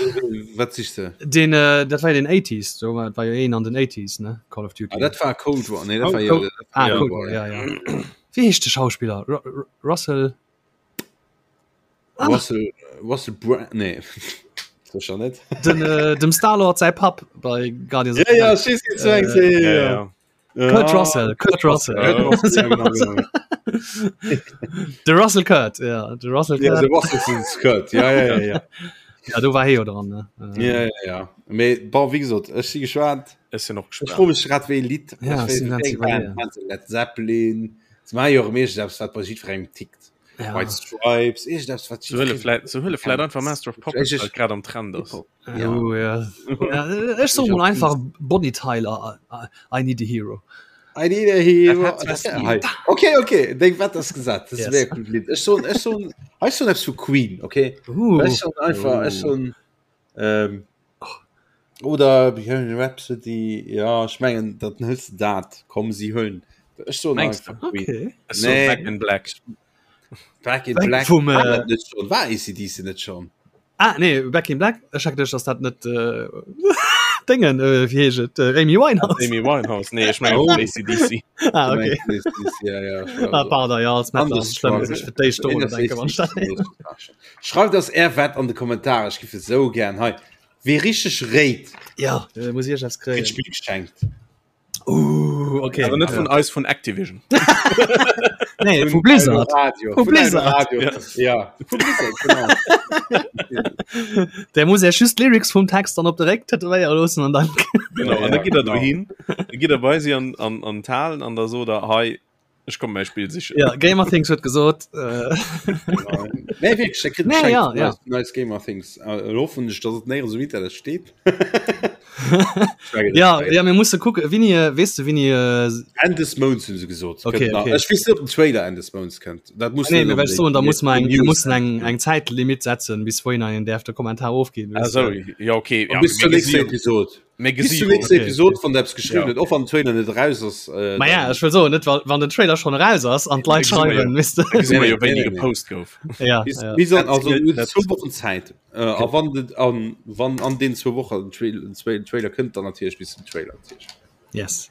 Wat sichs de? deen, äh, dat war jo den 80s, do war, war jo een an den 80s, ne, Call of Duty. Ah, dat war Cold War, nee, dat war jo, Cold, dat war ah, jo Cold War, War, ja. ja, ja. Wéi heescht de Schauspiller? Ru Ru Russell? Ah. Russell, Russell Brand, nee. Sicher net. Den, äh, dem Star-Lord säi Papp bei Guardians of Ja, the ja, Galaxy. ech weess, wien du mengs, ja, ja, Ja, ja. ja. Kurt Ja. Russell, Kurt Russell. Kurt Russell, ja, genau, genau. De Russell Kurt, ja, de Russell Ja, Kurt. de Russell Kurt, ja, ja, ja, ja. Ja, do war hie jo dran, ne? Äh, Ja, ja, ja. Mee, bon, wéi gesot, ech si gespaant. Ech sinn och Ech gespaant. froe mech grad wéi e Lidd. Ja, Ech ech sinn weess, ganz wéi eng Band, iwwerleeën. meinst du Led Zeppelin? Se maache jo och meeschtens eppes, wat bei jiddwerengem tickt. Ja. White Stripes, iergendeppes, wat Se huele jiddweree vläit, se huele vläit einfach Master of Puppets, Ech- well et grad am Trend ass. Hip-Hop. Ja. Oh, ja. ja. Ech soe mol einfach Bonnie Tyler, I, I need a hero. I need a hero. Dat hat Das- zwar hei. Okay, okay, deng Wett ass gesat. Das Yes. wär cool Lidd. Ech soen, ech soen, ech soen eppes vu Queen, okay? Uh. Ech soen einfach, ech soen, ähm, oder Bohemian Rhapsody, ja, ech mengen, dat hëls de dat. Komm, si huelen. Ech soen Mengs einfach Queen. Okay. Ech soen Nee. Back in Black. Back in Back Black vum, war äh, dat net schon? War ACDC net schon? Ah, nee, Back in Black. Ech hat geduecht, dass dat net äh, Dingen, äh, wéi heescht et? Äh, Amy Winehouse. Amy Winehouse. Nee, ech mengen Oh. ACDC. Ah, okay. ACDC, ja, ja, ich war Ah, so. pardon, ja, als Metal ass es schlëmm, dass ech fir d'éischt dorunner denke, wann ech dat héieren. Schreift ass är Wett an de Kommentare, ech giff et sou gären hei. Wee richteg réit, Ja, äh, muss ich eppes kritt kréien. d'Spill geschenkt. Uh, okay. Awer net vun eis vun Activision. Nee, vu Blizzard. Radio. Vu Blizzard. Radio. Ja, vu Blizzard, genau. Der muss ja just Lyrics vum Text dann op de Réck tätowéiere loossen an dann. Genau, Ja, an da ja, gitt der genau. dohin, da gitt der bei si an, an, an d'Halen an da sot der, hei, ech komme mäi Spill sichen. Ja, Gamer Things huet gesot. Äh, Nee, wierklech, der kritt Nee, geschenkt ja, vun ja. eis, vun eis Gamer Things. Äh, elo hoffen ech, dass et néierens um Internet steet. ja, ja, mir musse kucken. Winni, äh, weess de, Winni. Äh, Enn des Mounts hunn se gesot. Okay, Kënnt nach. okay. Ech weess net, ob den Trailer Enn des Mounts kënnt. Dat muss nee, net mir well unbedéngt soen, da muss man eng, News wir mussen eng, eng Zäitlimit setzen, bis wohin een däerf de Kommentar ofginn. Ah, weess de. so, ja, okay. Ja, Bis zur mir nächster gesi jo- Episode. Mir Bis gesi zur nächsten Okay. Episode wann der eppes geschriwwen huet, och wann den Trailer net eraus ass. Äh, Ma ja, ech wëll soen, net wa wann den Trailer schon eraus ass an d'Leit Da gesi mer jo. schreiwen, misst gesi mer jo Nee, wéini nee, nee. gepost gouf. ja, Bis, ja. bis an, also Dat du hues net. zwou Wochen Zäit. Äh, a wann den, an, wann an den zwou Wochen den Trail, den Trail, Trailer kënnt, dann natierlech bis zum Trailer natierlech. Yes.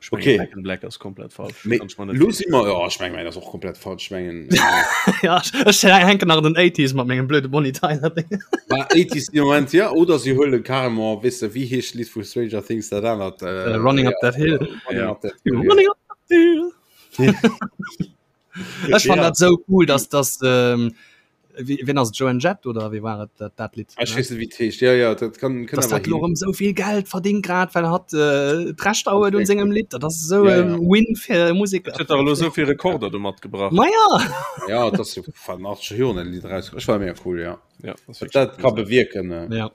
Ech mengen, Okay. Back in Black ass komplett falsch. Mee Kann ech mer net lo virstellen. si mer, ja, ech meng, mäin ass och komplett falsch. Ech mengen, äh, ja, ech ech hänken nach an den 80s mat mengem blöde Bonnie Tyler Ding. War 80s im Moment, ja, oder sie huelen carrément, weess de, wéi heescht d'Lidd vu Stranger Things, dat anert, äh, Running ja, Up That Hill. Running Ja. Up That Hill, ja. Running Up That Hill. Ech fand Ja. dat sou cool, dass dass ähm, Wie, wien ass et? Joan Jett oder wie war et dat, dat Lidd? Ech weess net, wéi et heescht. Ja, ja, dat kann, kann Dass awer dat lo hin. erëm sou vill Geld verdingt grad, well hatt äh, d'Rechter huet un sengem Lidd. Dat ass sou Ja, e ja. Win fir Museker. Et huet dach elo esou vill Rekorder domat gebrach. Ma ja! Ja, dat ass jo van 80 Joren dat Lidd eraus. Ech war mega cool, ja. Ja, das ist Dat, dat wirklich ka cool. bewierken. Äh. Ja.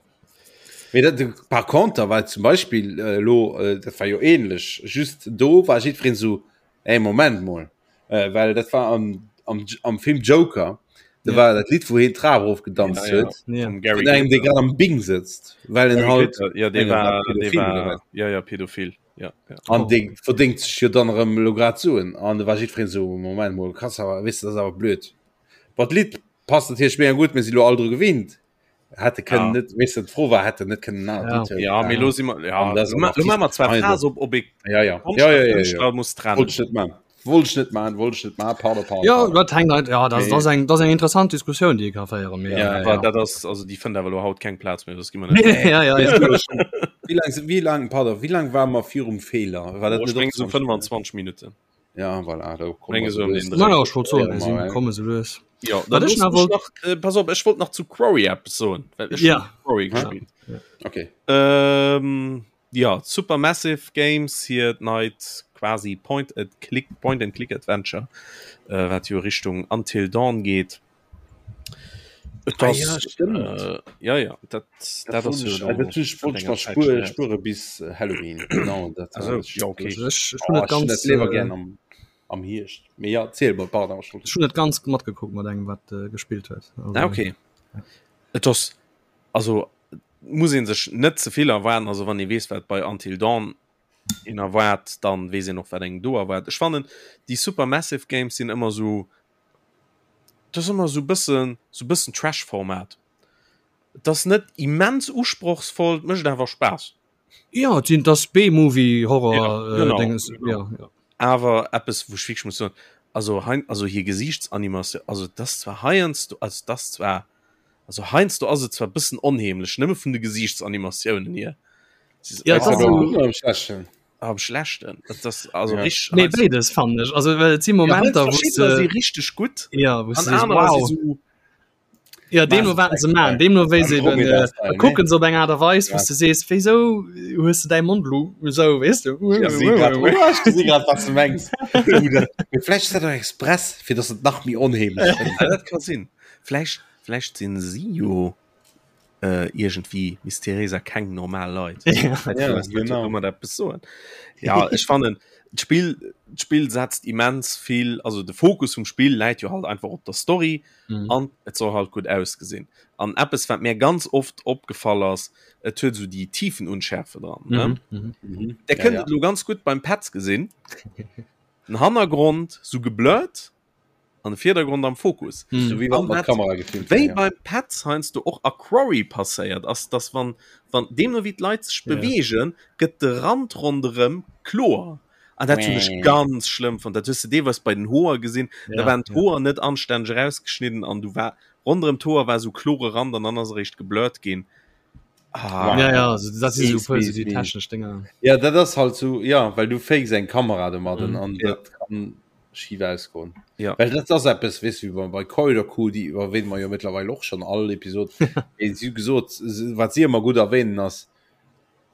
Mee dat, par contre war zum Beispiel äh, lo, äh, dat war jo ähnlech. Just do war jiddwereen sou, Ey, Moment mol. Äh, well dat war am, am, am Film Joker. Da Ja. war dat Lidd, wou hien d'Trap erofgedanzt Ja, ja. huet. Ja. Vum Gary Vun engem, dee Glitter. grad am Bing sëtzt. Well en Gary halt Glitter, ja, dee mengen, war war, dee pädophil oder war, wat. ja, ja, pädophil. Ja, ja. An Oh. dee verdéngt sech jo dann erëm elo grad Suen. An da war jiddwereen sou, Moment mol, krass, awer, weess de, dat ass awer blöd. Bon, d'Lidd passt natierlech mega gutt, mir si lo all dru gewinnt. Hätte kënnen Ja. net, weess de, d'Fro war, hätte net kënnen en anert Ja. Lidd huelen. Ja, mee lo si mer, ja, An dat ass lo ma- lo maache mer zwar Artist- Phase op, op ee Ja, ja. Konscht Ja, a ja, ja, ja. Kënschtler muss trennen. Wollt ech net man. Wollt ech net man, wollt ech net man, pardon, pardon. Ja, pardon. dat hängt halt, ja, das, Nee. das, eng, das eng interessant Diskussioun, déi ee ka féieren. Mee, Ja, ja, Aber ja. dat ass, also déi fënnt awer lo haut keng Plaz méi, das gi mer net. Nee, ja, ja, ja. Wéi lang, wéi lang, pardon, wéi lang war mer virum Feeler? War dat Oh, ech net meng och so 20 25 Minuten. Ja, voilà, da kommen Menge wir so um lues. den Dreh. Na ja, ech wollt soen, Ja, mir sinn mal, komme sou lues. Ja, Wat dann ech looss nach mech wollt- nach, äh, pass op, ech wollt nach zu Quarry eppes soen, well ech Ja. hunn Quarry Ja. gespillt. Okay. Ähm, ja, Supermassive Games hiert neit quasi Point and Click, Point and Click Adventure, äh, wat jo Richtung Until Dawn geet. Et Ah ass, ja, stimmt. Äh, ja, ja, dat, dat ass jo Ech wollt enger mal Zäit spure, schon her. spure bis äh, Halloween. Genau, dat Also, ja, okay. Also ech, ech Oh, hun net ech hun ganz, dat liewer äh, gern am, am Hierscht. Mee ja, ziel mal, pardon. ech wollt- ech hun net ganz matgekuckt mat engem, wat äh, gespillt huet. Also, Ah, okay. Et ass, also muss een sech net ze vill erwaarden, also wann ee weess wat bei Until Dawn een erwaart, dann weess een och wat engem do erwaart. Ech fannen déi Supermassive Games sinn ëmmer sou, dat ass ëmmer sou bëssen, sou bëssen Trash-Format. Et ass net immens usprochsvoll, et mécht awer Spaass. Ja, et sinn das B-Movie Horror Ja, äh, genau, Dinges, genau. ja, ja. Awer eppes wou ech wierklech muss soen, also hein, also hir Gesiichtsanimation, also et ass zwar heiansdo, also et ass zwar, also heiansdo ass et zwar bëssen onheemlech, nëmme vun de Gesiichtsanimatiounen hier. Ja, Ass dat dat ass am so- Gudden oder am Schlechten? Am Schlechten. Dat ass also Ja. richtig. Nee, beides fand ech. Also well et si Momenter, ja, wou verschiddener se si richtig gutt ja, wou an se sees, anerer wow. si so Ja, deemno wat se man, deemno wéi se eben Andromeda äh, Style, ne? kucken se op eng Art a Weis, wou Ja. du sees, wéisou hues du däi Mond lo esou, weess du? Ich gesi grad, oh, ech gesi grad, was du mengs. Oder, mee vläicht ass dat och express, fir dass et nach méi onheemlech gëtt. Ja, dat ka sinn. Vläicht, vläicht sinn si jo äh, iergendwéi mysteriéis a keng normal Leit. Ja. Ja, genau. Kann man eppes soen. Ja, ech fannen d'Spill, d'Spill setzt immens vill, also de Fokus vum Spill läit jo halt einfach op der Story Mhm. an et soll halt gutt ausgesinn. An eppes wat mir ganz oft opgefall ass, et huet esou déi Tiefenunschärfe dran. Ne? Mhm. Mhm. Mhm. Der Ja, kënnt ja. et lo ganz gutt beim Petz gesinn. Den Hannergrond sou geblurrt an de Virdergrond am Fokus. Mhm. So wéi wann An mat wat- Kamera gefilmt Wéi wär, ja. beim Petz heiansdo och a Quarry passéiert ass, dass wann, wann deemno wéi d'Leit sech Ja. beweegen, gëtt de Rand ronderëm kloer. An dat hunn ech Mäh. ganz schlëmm fonnt. Dat hues de deelweis bei den Hoer gesinn. Da Ja, waren ja. d'Hoer net anstänneg erausgeschnidden an du war ronderëm d'Hoer war esou klore Rand an dann ass eréischt geblurrt ginn. Ah, Ja, ja, also dat si sou Mies, puer mies, sou déi mies. technesch Dinger. Ja, dat ass halt so, ja, well du fakes eng Kamera domadden Mhm. an Ja. dat kann schif ausgoen. Ja. Well dat ass eppes, weess du, wéi bei, bei Corridor Crew, déi erwähne mer jo mittlerweile och schon all Episod, mee si hu gesot, se- wat si ëmmer gutt erwähnen ass,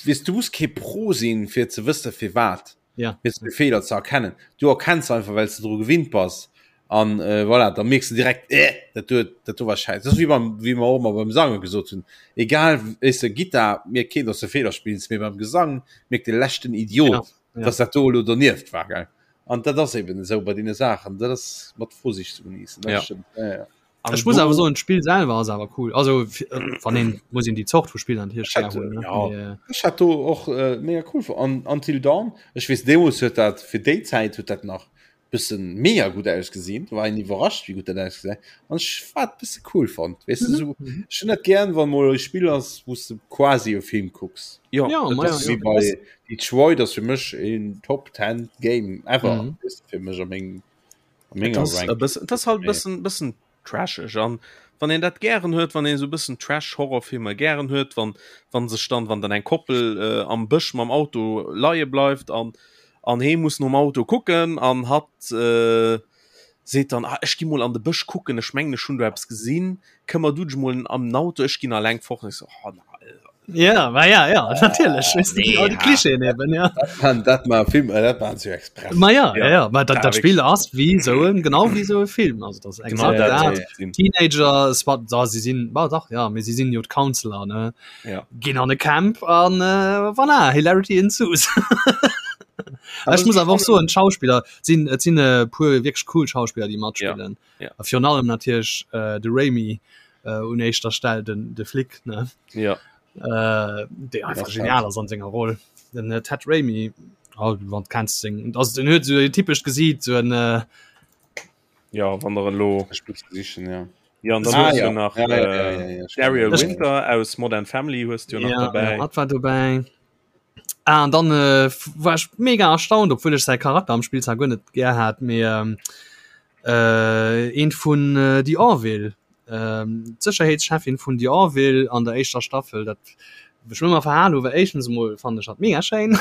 weess du muss kee Pro sinn, fir ze wësse firwat, Ja. fir de Feeler ze erkennen. Du erkenns einfach, well s de dru gewinnt bass an äh, voilà, da mierks du direkt, äh, dat do, dat do war scheiße. Dat ass wéi beim, wéi mer och ëmmer beim Sange gesot hunn. Egal, weess de, Gittar mierkt keen, dass du Feeler spills, mee beim Gesang mierkt de leschten Idiot, Ja, ja. dass dat do elo donieft war, gell. An dat ass eben esou bei deene Saachen, dat ass mat Vorsicht ze genießen. Dat Ja. stëmmt. Ja, ja. Ech muss awer soen d'Spill selwer ass awer cool. Also äh, wann een muss een déi Zort vu Spiller natierlech gär hunn. ne? Ja. Mee, äh, Ech hat do och äh, mega cool an Until Dawn. Ech weess deemools huet dat fir déi Zäit huet dat nach bëssen mega gutt ausgesinn. War een iwwerrascht wéi gutt dat ausgesäit. An ech war et bësse cool fonnt. Weess du Mhm. sou ech hunn dat gären wann mol e Spill ass wou s de quasi e Film kucks. Ja, Ja, et ma ass ja, Wéi bei Detroit ass fir mech een Top 10 Game ever. Mhm. Weess du, fir mech a meng Et ass e bëssen, et ass halt bëssen, bëssen trasheg an wann een dat gären huet, wann een esou bëssen Trash Horrorfilmer gären huet, wann wann sech dann wann dann eng Koppel äh, am Bësch mam Auto leie bleift an an hee muss nom Auto kucken an hatt äh, seet dann ah, ech gi mol an de Bësch kucken, ech mengen ech hunn do eppes gesinn, këmmer du dech mol am Auto, ech ginn alleng fort. Ech so, oh, na, Ja, ma ja, ja, natierlech. Weißt du, nee, all die ha. Klischeen eben, ja. Dat, dat mar Film äh, dat waren ze express. Ma ja, Ja. ja, ja. Ma dat, Ja, dat Spiel ass wie so en, genau wie so e Film. Also das Genau exakt dat dat. sinn. Teenager, es war, da, sie sinn, war dach, ja, mee sie sinn jo d'Counselor, ne? Ja. Ginn an e Camp an äh, voilà, Hilarity ensues. Ech muss awer och soen, d'Schauspiller sinn, et sinn e puer wierklech cool Schauspiller, déi matspillen. Ja. A virun allem natierlech äh, de Raimi äh, un éischter Stell, den, de Flic, ne? Ja. Äh, dee einfach Das genial ass an senger Roll. Den äh, Ted Raimi, oh, wann kennst seng, also den huet so e typescht Gesiit, so en äh, Ja, wann der elo Ech muss sichen, ja. Ja, an dann Ah, hues ja. du nach Ja, ja, äh, ja, ja, ja, stimmt. Daryl Ech- Winter aus Modern Family hues du jo nach ja, dabei. ja, hat war dobäi. Ah, an dann äh, war ech mega erstaunt, obwuel ech säi Charakter am Spill zwar guer net gär hat, mee ähm, äh, eent vun äh, The Orville, ähm, d'Sécherheetschefin vun The Orville an der éischter Staffel, dat ech mir ëmmer verhal hu, well éischtens emol fannen ech hatt mega schéin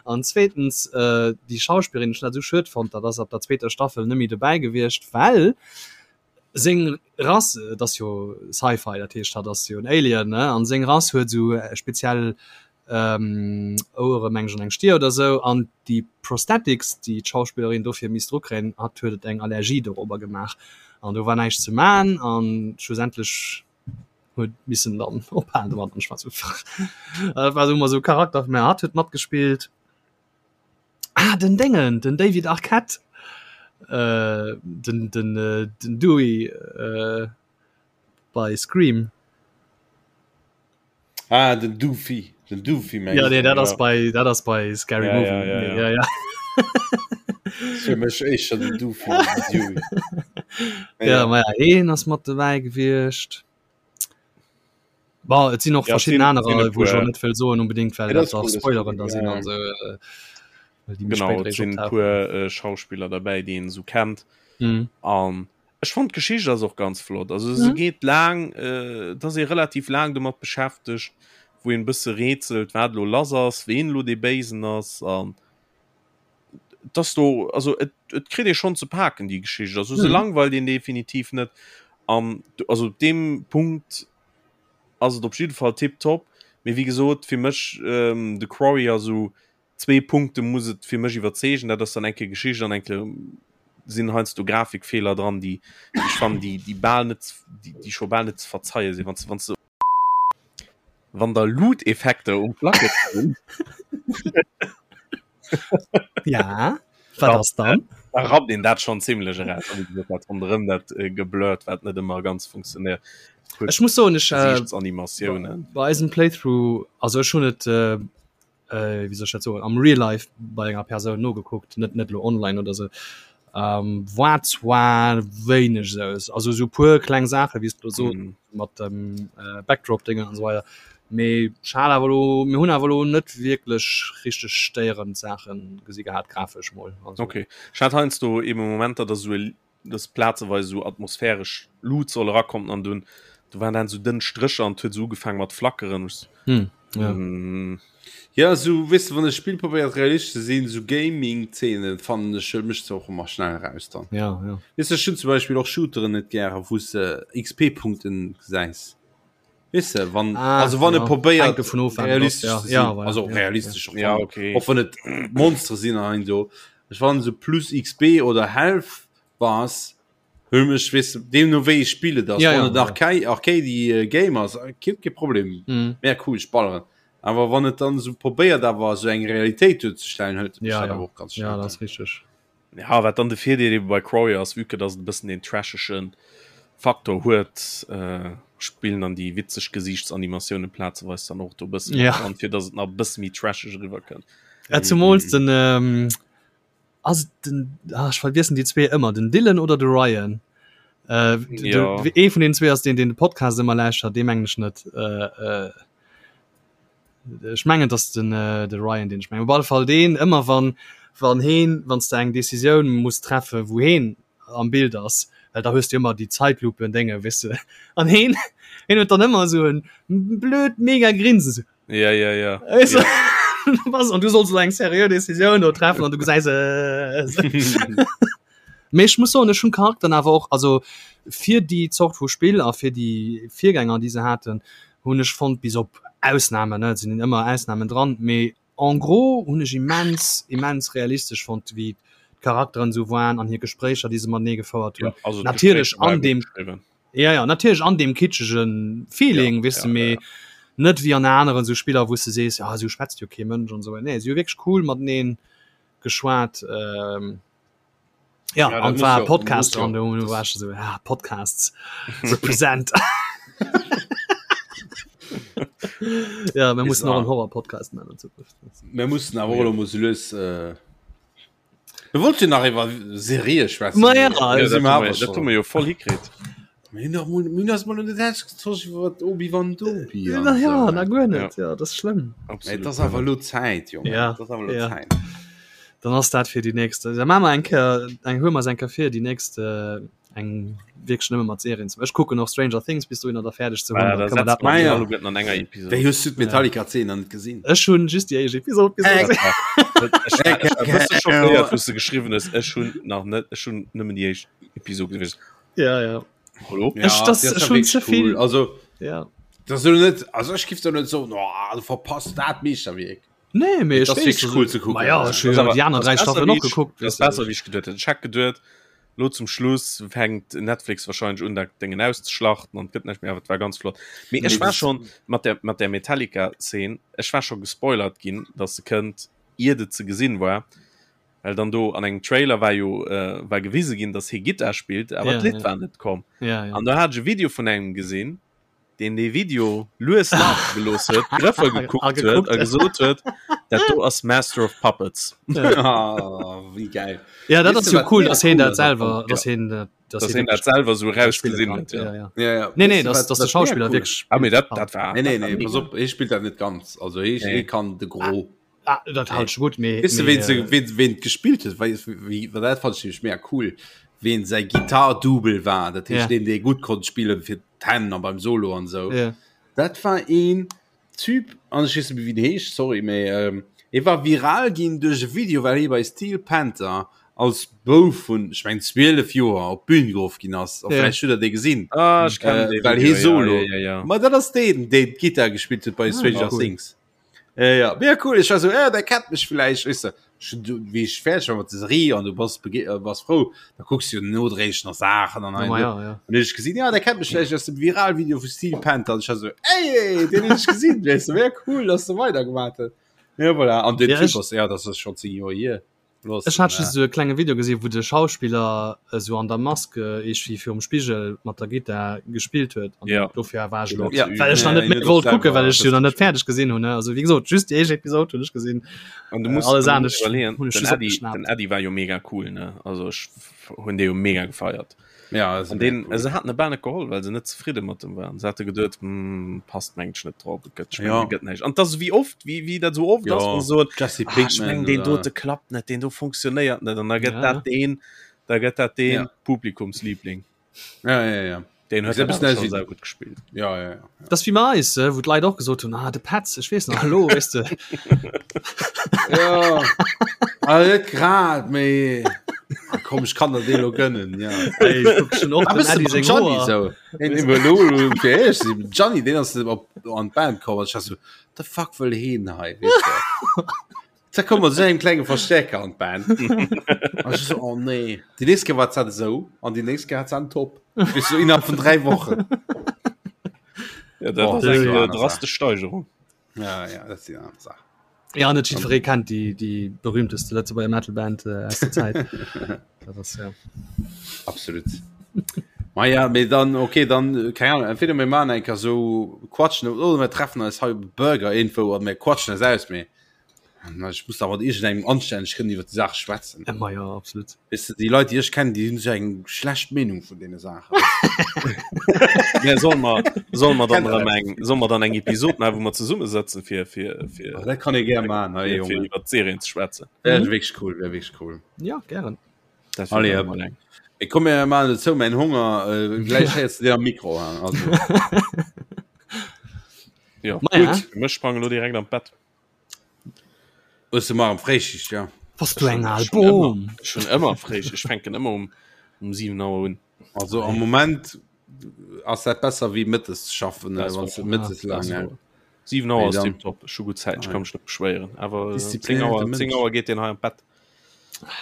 an zweetens äh, déi Schauspillerin, ech hunn dat esou schued fonnt, dat ass ab der zweeter Staffel net méi dobäi gewiescht, well Seng Rass, et ass jo Sci-Fi, dat heescht hatt ass jo en Alien, ne, an seng Rass huet esou speziell Ouere meng ech an eng Stier oder esou, an déi Prosthetics déi d'Schauspillerin dofir misst drukréien, hatt huet et eng Allergie dorobber gemaach an do war näischt ze man an schlussendlech huet missen dann ophalen domat an ech war esou dat war esou ëmmer esou Charakter, mä hatt huet matgespillt. Ah, den Déngen, den David Arquette, äh, den, den, äh, den Dewey äh, bei Scream. Ah, den Doofy, den Doofy mengst Ja, nee, dat ass bei, dat ass bei Scary Ja, Movie. ja, ja, Nee, ja. ja, ja. Fir mech éischter den Doofy, den Dewey. Ja, ma ja, heen ass mat dobäi gewiescht. Bon, et sinn och Ja, et verschidden sinn- anerer, sinn e wou ech och puer. net wëll soen unbedingt, well Ja, dat dat dach ass cool, dat ass Spoileren cool, da ja, sinn ja. an esou, äh, well déi méi Genau, spéit et eréischt sinn optauchen. puer äh, Schauspiller derbäi, déi een esou kennt. Mhm. An ech fand d'Geschicht ass och ganz flott. Also se Mhm. geet laang, äh, et ass ee relativ laang domat beschäftegt, wou een e bësse rätselt, wat elo lass ass, ween elo dee Béisen ass an dass do also et, et kritt ee schonn ze paken déi Geschicht. Also se Mhm. langweilt een definitiv net. An also op deem Punkt ass et op jidde Fall tiptop. Mee wéi gesot, fir mech ähm, The Quarry ass esou zwee Punkte muss et fir mech iwwerzeegen. Dat ass dann eng Kéier Geschicht an eng Kéier sinn heiansdo Grafikfeeler dran, déi déi ech fannen, déi déi bal net déi déi scho bal net ze verzeie sinn, wann s wann s de wann der Loot-Effekter um Placke sinn. Ja, wat ass dann? Da rappt een dat schonn zimlech eraus. A wéi gesot, dat ronderëm dat äh, geblurrt, wat net ëmmer ganz funktionéiert. Ech muss soen, ech äh, Gesiichtsanimatiounen. bei eisem Playthrough, also ech hunn et äh, äh, wéi soll ech dat soen, am Real Life bei enger Persoun nogekuckt, net net lo online oder sou. Ähm, war zwar wéineg sou, also sou puer kleng Saache wéi s du lo sos Mhm. mat dem äh, Backdrop-Déngen an esou weider. Mee ech hat awer lo, mir hunn awer lo net wierklech richteg stéierend Saache gesi gehat, grafesch mol. Also, Okay. Ech hat heiansdo eben Momenter, dass esou e dass plazeweis esou atmosphäresch Luut soll erakommen an dunn do waren dann esou dënn Strécher an et huet esou ugefaangen mat flackeren. Ech Hm, ja. mm, Ja, sou weess de, wann e Spill probéiert realistesch ze sinn, sou Gaming-Zeenen fannen ech mécht se och ëmmer schnell eraus dann. Ja, ja. Weess de, ech hunn zum Beispill och Shooteren net gären, wou s de XP-Punkten gesäis. Weess de, wann Ah, also wann e ja. probéiert Hänkt dovun of, wat et ass, realistesch ja. ze sinn, Ja, voilà, also ja, realistesch och ja, wann okay. och wann et Monstere sinn an esou, ech fannen sou plus XP oder Health Bars hu mech weess de, deemno wéi e Spill et ass, Ja, wann ja, et ja. Arcade Arcady Game ass, kee kee Problem, Mhm. mega cool, ech balleren. Awer wann et dann esou probéiert awer esou eng Realitéit duerzestellen, hëlt et mech Ja, dat ja. awer och ganz Ja, schnell dat dann. ass richteg. Ja, wat dann de Virdeel eben bei Quarry ass, vue que dass et e bëssen deen trasheschen. Faktor huet, äh, spillen dann déi witzeg Gesiichtsanimatiounen plazeweis dann och do e bëssen Ja. dran, fir dass et nach e bësse méi trasheg eriwwer kënnt. Ja, zumools den ähm, ass et den ah, ech vergiessen déi zwee ëmmer, den Dylan oder de Ryan? Äh, de, Ja. de, ee vun den zwee ass deen, deen de Podcast ëmmer lauschtert, dee mengen ech net. Äh, äh, Ech mengen dass den äh, de Ryan den ech mengen. Op alle Fall deen ëmmer wann wann heen wann s de eng Decisioun muss treffe wou heen am Bild ass, well da hues du ëmmer déi Zeitlupen Dénge weess de an heen heen huet dann ëmmer esou en blöd mega Grinsen esou. Ja ja ja. Weess de? Was an du solls elo eng seriö Decisioun do treffen an du gesäis äh, Mee ech muss soen, ech hunn d'Charakteren awer och, also fir déi Zort vu Spill a fir déi Virgänger, déi se haten, hunn ech fonnt, bis op Ausnamen, ne, et sinn ëmmer Ausnamen dran, mee en gros hunn ech immens, immens realistesch fonnt, wéi d'Charakteren esou waren an hir Gespréicher, déi se matenee gefouert hunn. Ja, also Natierlech d'Gespréicher waren an gutt deem, geschriwwen. ja, ja, natierlech an deem kitschege Feeling, Ja, weess de, ja, ja, mee ja. net wéi an aneren esou Spiller, wou s de sees, ja, esou schwätzt jo kee Mënsch an esou. Nee, si hu wierklech cool matenee geschwat. Ähm, Ja, Ja, an dat war muss jo- Podcast muss jo. dran, do war ich so, ja, Podcasts represent. ja, wir müssen noch einen Horror-Podcast machen in Zukunft. Mir mussen awer och elo mol sou lues äh, Mir wollte jo nach iwwer Serië schwätzen. Ma ja, Mee also do si Dat mer hu awer mer- dat hu schon. mer jo voll hikritt. Mir hunn nach mol, mir hunn eis mol net ausgetosch iwwer Obi-Wan Dobi an Na ja, esou. na guer net, ja, das ist schlimm. Mee Absolut. et ass awer elo Zäit, Jongen. Ja, Et ass awer elo ja. Zäit. Dann ass dat fir déi nächst. Da maache mer eng Kéier, eng huele mer eis eng Kéier vir, déi nächst äh, eng wierklech nëmme mat Serien ze. Ech kucken och Stranger Things bis dohinner da fäerdeg ze hunn. Ah, Dann da kënne mer setzt dat man nach. Ah, ja. alleguerten an enger Episode. Wéi hues du d'Metallica-Zeen nach net gesinn? Ech hunn just déi éischt Episode gesinn. Ech war ech war e bësse schockéiert, wou s de geschriwwen hues, ech hunn nach net, ech hunn nëmmen déi éischt Episode gesinn. Ja, ja. Hallo? Ja, Ech- das die ass ist ja schon wirklich zu viel. Cool. Also, Ja. das ist net, also ich gif net so, oh, du verpasst dat Meeschterwierk. Nee, mee ech Das ist weess, wirklich also- cool zu gucken. Ma ja, ech hunn Das jo awer- déi aner das dräi besser, Staffelen wéi och ich- gekuckt. Das weess du. besser wéi ich geduet hätt. Ich hätt geduet, lo zum Schluss fänkt Netflix wahrscheinlich un dat Dingen auszuschlachten an gëtt näischt méi, awer et war ganz flott. Mee ech Nee, war das- schon mat der mat der Metallica Szene, ech war schon gespoilert ginn, dass se kënnt, iert et ze gesinn war. Well dann do an engem Trailer war jo äh, war gewise ginn, dass hie Gittar spillt, awer Ja, d'Lidd ja. war net komm. Ja, ja. An da hat ech e Video vun engem gesinn, deen dee Video lues lafe gelooss huet, d'Grëffer gekuckt A huet gekuckt. a gesot huet, dat do ass Master of Puppets. Ah, wéi geil. Ja, dat Weess ass du, jo wat cool, mega dass heen cool dat ass selwer, Ja. dass heen dat, dass Dass heen hien dat wirklich selwer sou spille rausgesinn kann. huet. Ja. Ja, ja. Ja, ja. Nee, nee, Weess du, dass, wat- dass de wat mega Schauspiller cool wirklich Ah, mee dat, spillt. dat war. Nee, nee, dat war nee, mega. pass op, hie spillt dat net ganz. Also, hie, Nee. hie kann de Gros. Ah, dat halt schon gut mee, Weess du, mee, wen, se, äh, wen, wen gespillt huet? Wei, wéi, well dat fand ich nämlich mega cool. Wen säi Gitarre-Double war, dat heescht, Ja. deen, dee gutt konnt spillen fir d'Hänn an beim Solo an sou. ja. Dat war een Typ, an ech weess net méi, wéi den heescht, sorry, mee ähm, hie war viral ginn duerch e Video, well hie bei Steel Panther als Bouf vun, ech meng, 12 Joer op d'Bün geruff ginn ass. A Ja. vläicht hutt der dee gesinn. Ah, ech kennen Äh, dee well Video, hie ja, Solo. ja, ja, ja. Ma dat ass deen, deen d'Gittar gespillt huet bei Ah, Stranger cool. Things. Ja, ja. Mega cool. Ich war so, äh, der kennt mich vielleicht. Weißt du, schon, du, wie ich fertig war mit der Serie und du bist, äh, bist froh, da guckst du nodräglich noch Sachen und Ja, ma ja, ja. Und ich gesehen, ja, der kennt mich vielleicht aus dem Viral-Video von Steel Panther. Und ich war so, ey, den hab ich gesehen, weißt du, wär cool, dass du weitergemacht hast. Ja, voilà. Und den Ja, Typ ich- ist, ja, das ist schon 10 Jahre hier. Los, Ech hat äh, just esou e klenge Video gesinn, wou de Schauspiller esou an der Mask iergendwéi virum Spigel mat der Gittar gespillt huet. An Ja. dofir war ech elo, Ja. well ech nach Ja, net méi ja, wollt das kucken, well ech jo nach net selber- fäerdeg gesinn hunn. ne. Also wéi gesot, just déi éischt Episod hunn ech gesinn. An du Äh, musst, alles an du musst anescht iwwerleeën, hunn ech den just Eddie, opgeschnappt. den Eddie war jo mega cool, ne? Also ech hunn dee jo mega gefeiert. Ja, das An ist den, mega cool. se haten e bal net geholl, well se net zefridde mat dem waren. Se hate geduet, hm, passt mengt ech net drop, et gëtt, ech Ja. mengen, gëtt näischt. An das wéi oft, wéi, wéi dat sou oft Ja, ass, wou se soen, Jesse ah, ech Pinkman mengen, deen oder- dote klappt net, deen do funktionéiert net. An da gëtt Ja. dat deen, da gëtt dat deen Ja. Publikumsliebling. Ja, ja, ja. Deen huet Ist dat ein awer bisschen schon aus wie- sehr gut gespielt. Ja, ja, ja. Das wie bei eis, äh, wou d'Leit och gesot hunn, ah, de Petz, ech weess nach, hallo, weess de. Ja. Also net grad, mee Ah, komm, ich kann der dee lo gönnen, ja. Ey, ich guck schon och Ah, dem bist du Eddie beim seng Gianni Hoer. so? Een iwwer lo, lo, fir ehrlich ze sinn, Gianni, deen ass op an d'Band komm, an ich war so, the fuck wëll heen hei, weess de? Da komm mat esou engem klenge Verstärker an d'Band. An ich so, oh nee. Déi nächst Kéier war d'Zett esou, an déi nächst Kéier hat se en Top. Weess du, innerhalb vun 3 Wochen. Ja, dat Oh, ass das eng ist äh, eine Sache. drastesch Steigerung. Ja, ja, dat ass déi aner Saach. Ja, net jiddweree kennt déi, déi berühmteste Lëtzebuerger Metalband äh, aus der Zäit. Dat ass, ja. Absolut. Ma ja, mee dann okay, dann keine Ahnung, entweder mir maachen eng Kéier sou quatschen oder mir treffen eis hei op Burger irgendwou an mir quatschen eis aus, mee ech muss da mat iergendengem anstänneg kënnen iwwer déi Saach schwätzen. Ja, ma ja, absolut. Weess de, déi Leit, déi ech kennen, déi hunn sou eng schlecht Meenung vun deene Saachen. Ja, soll mer, soll mer dann erëm eng, soll mer dann eng Episod maachen, wou mer zesummesëtzen, fir, fir, fir, Ah, dat kann ee gär maachen, hei, fir Jongen. iwwer d'Serien ze schwätzen. Wär wierklech cool, wär wierklech cool. Ja, gären. Dat wär Allez, dann hop. emol eng. Ich komme ja mal dazu, mein Hunger, äh, gleich jetzt dir am Mikro an. Also, Ja, Ma ja. gut. Mech sprange lo direkt am Bett. Hast du mal am Fréischicht, ja. Was du eng al Schon ëmmer, Boom. schon ëmmer fréich. Ech fänken ëmmer um, um 7 Auer un. Also am Moment ass dat besser wéi mëttes ze schaffen, Das wann war- du mëttes das lang war- ja. 7 Auer Nee, ass dann- tiptop. Ech hu gutt Zäit, ech kann mech net beschwéieren. Awer 10 Disziplinéierte Auer, Mënsch. 10 Auer geet deen hei am Bett.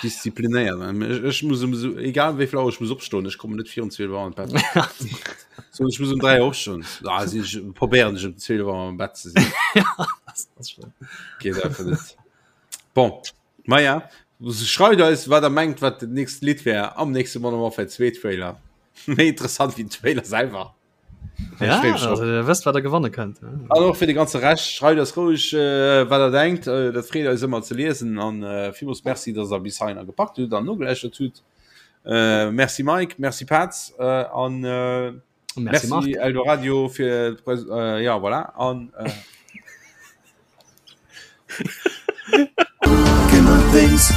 Disziplinéiert. Ech, ech muss um so, egal wéi vill Auer ech muss opstoen, ech kommen net virun 12 Auer an d'Bett. So, ech muss um 3 Auer opstoen. Ah, si ech probéieren ech um 12 Auer am Bett ze sinn. Das ass schon. Geet einfach net. Bon, ma ja, schreift eis, wat der mengt, wat dat nächst Lidd wär am nächste Modern Warfare 2 Trailer. Méi interessant wéi den Trailer selwer. Ja, also, ihr wësst, wat der gewanne kënnt. An och fir de ganze Rescht, schreift eis roueg, äh, wat der denkt. Äh, dat freet eis ëmmer ze liesen. An äh, villmools Merci, dass der bis heihinner gepackt hutt an nogelauschtert hutt. Äh, merci Mike, merci Paz äh, an äh, Merci, Marc. merci Eldoradio fir d'Pres äh, ja voilà an äh, Gamer Things.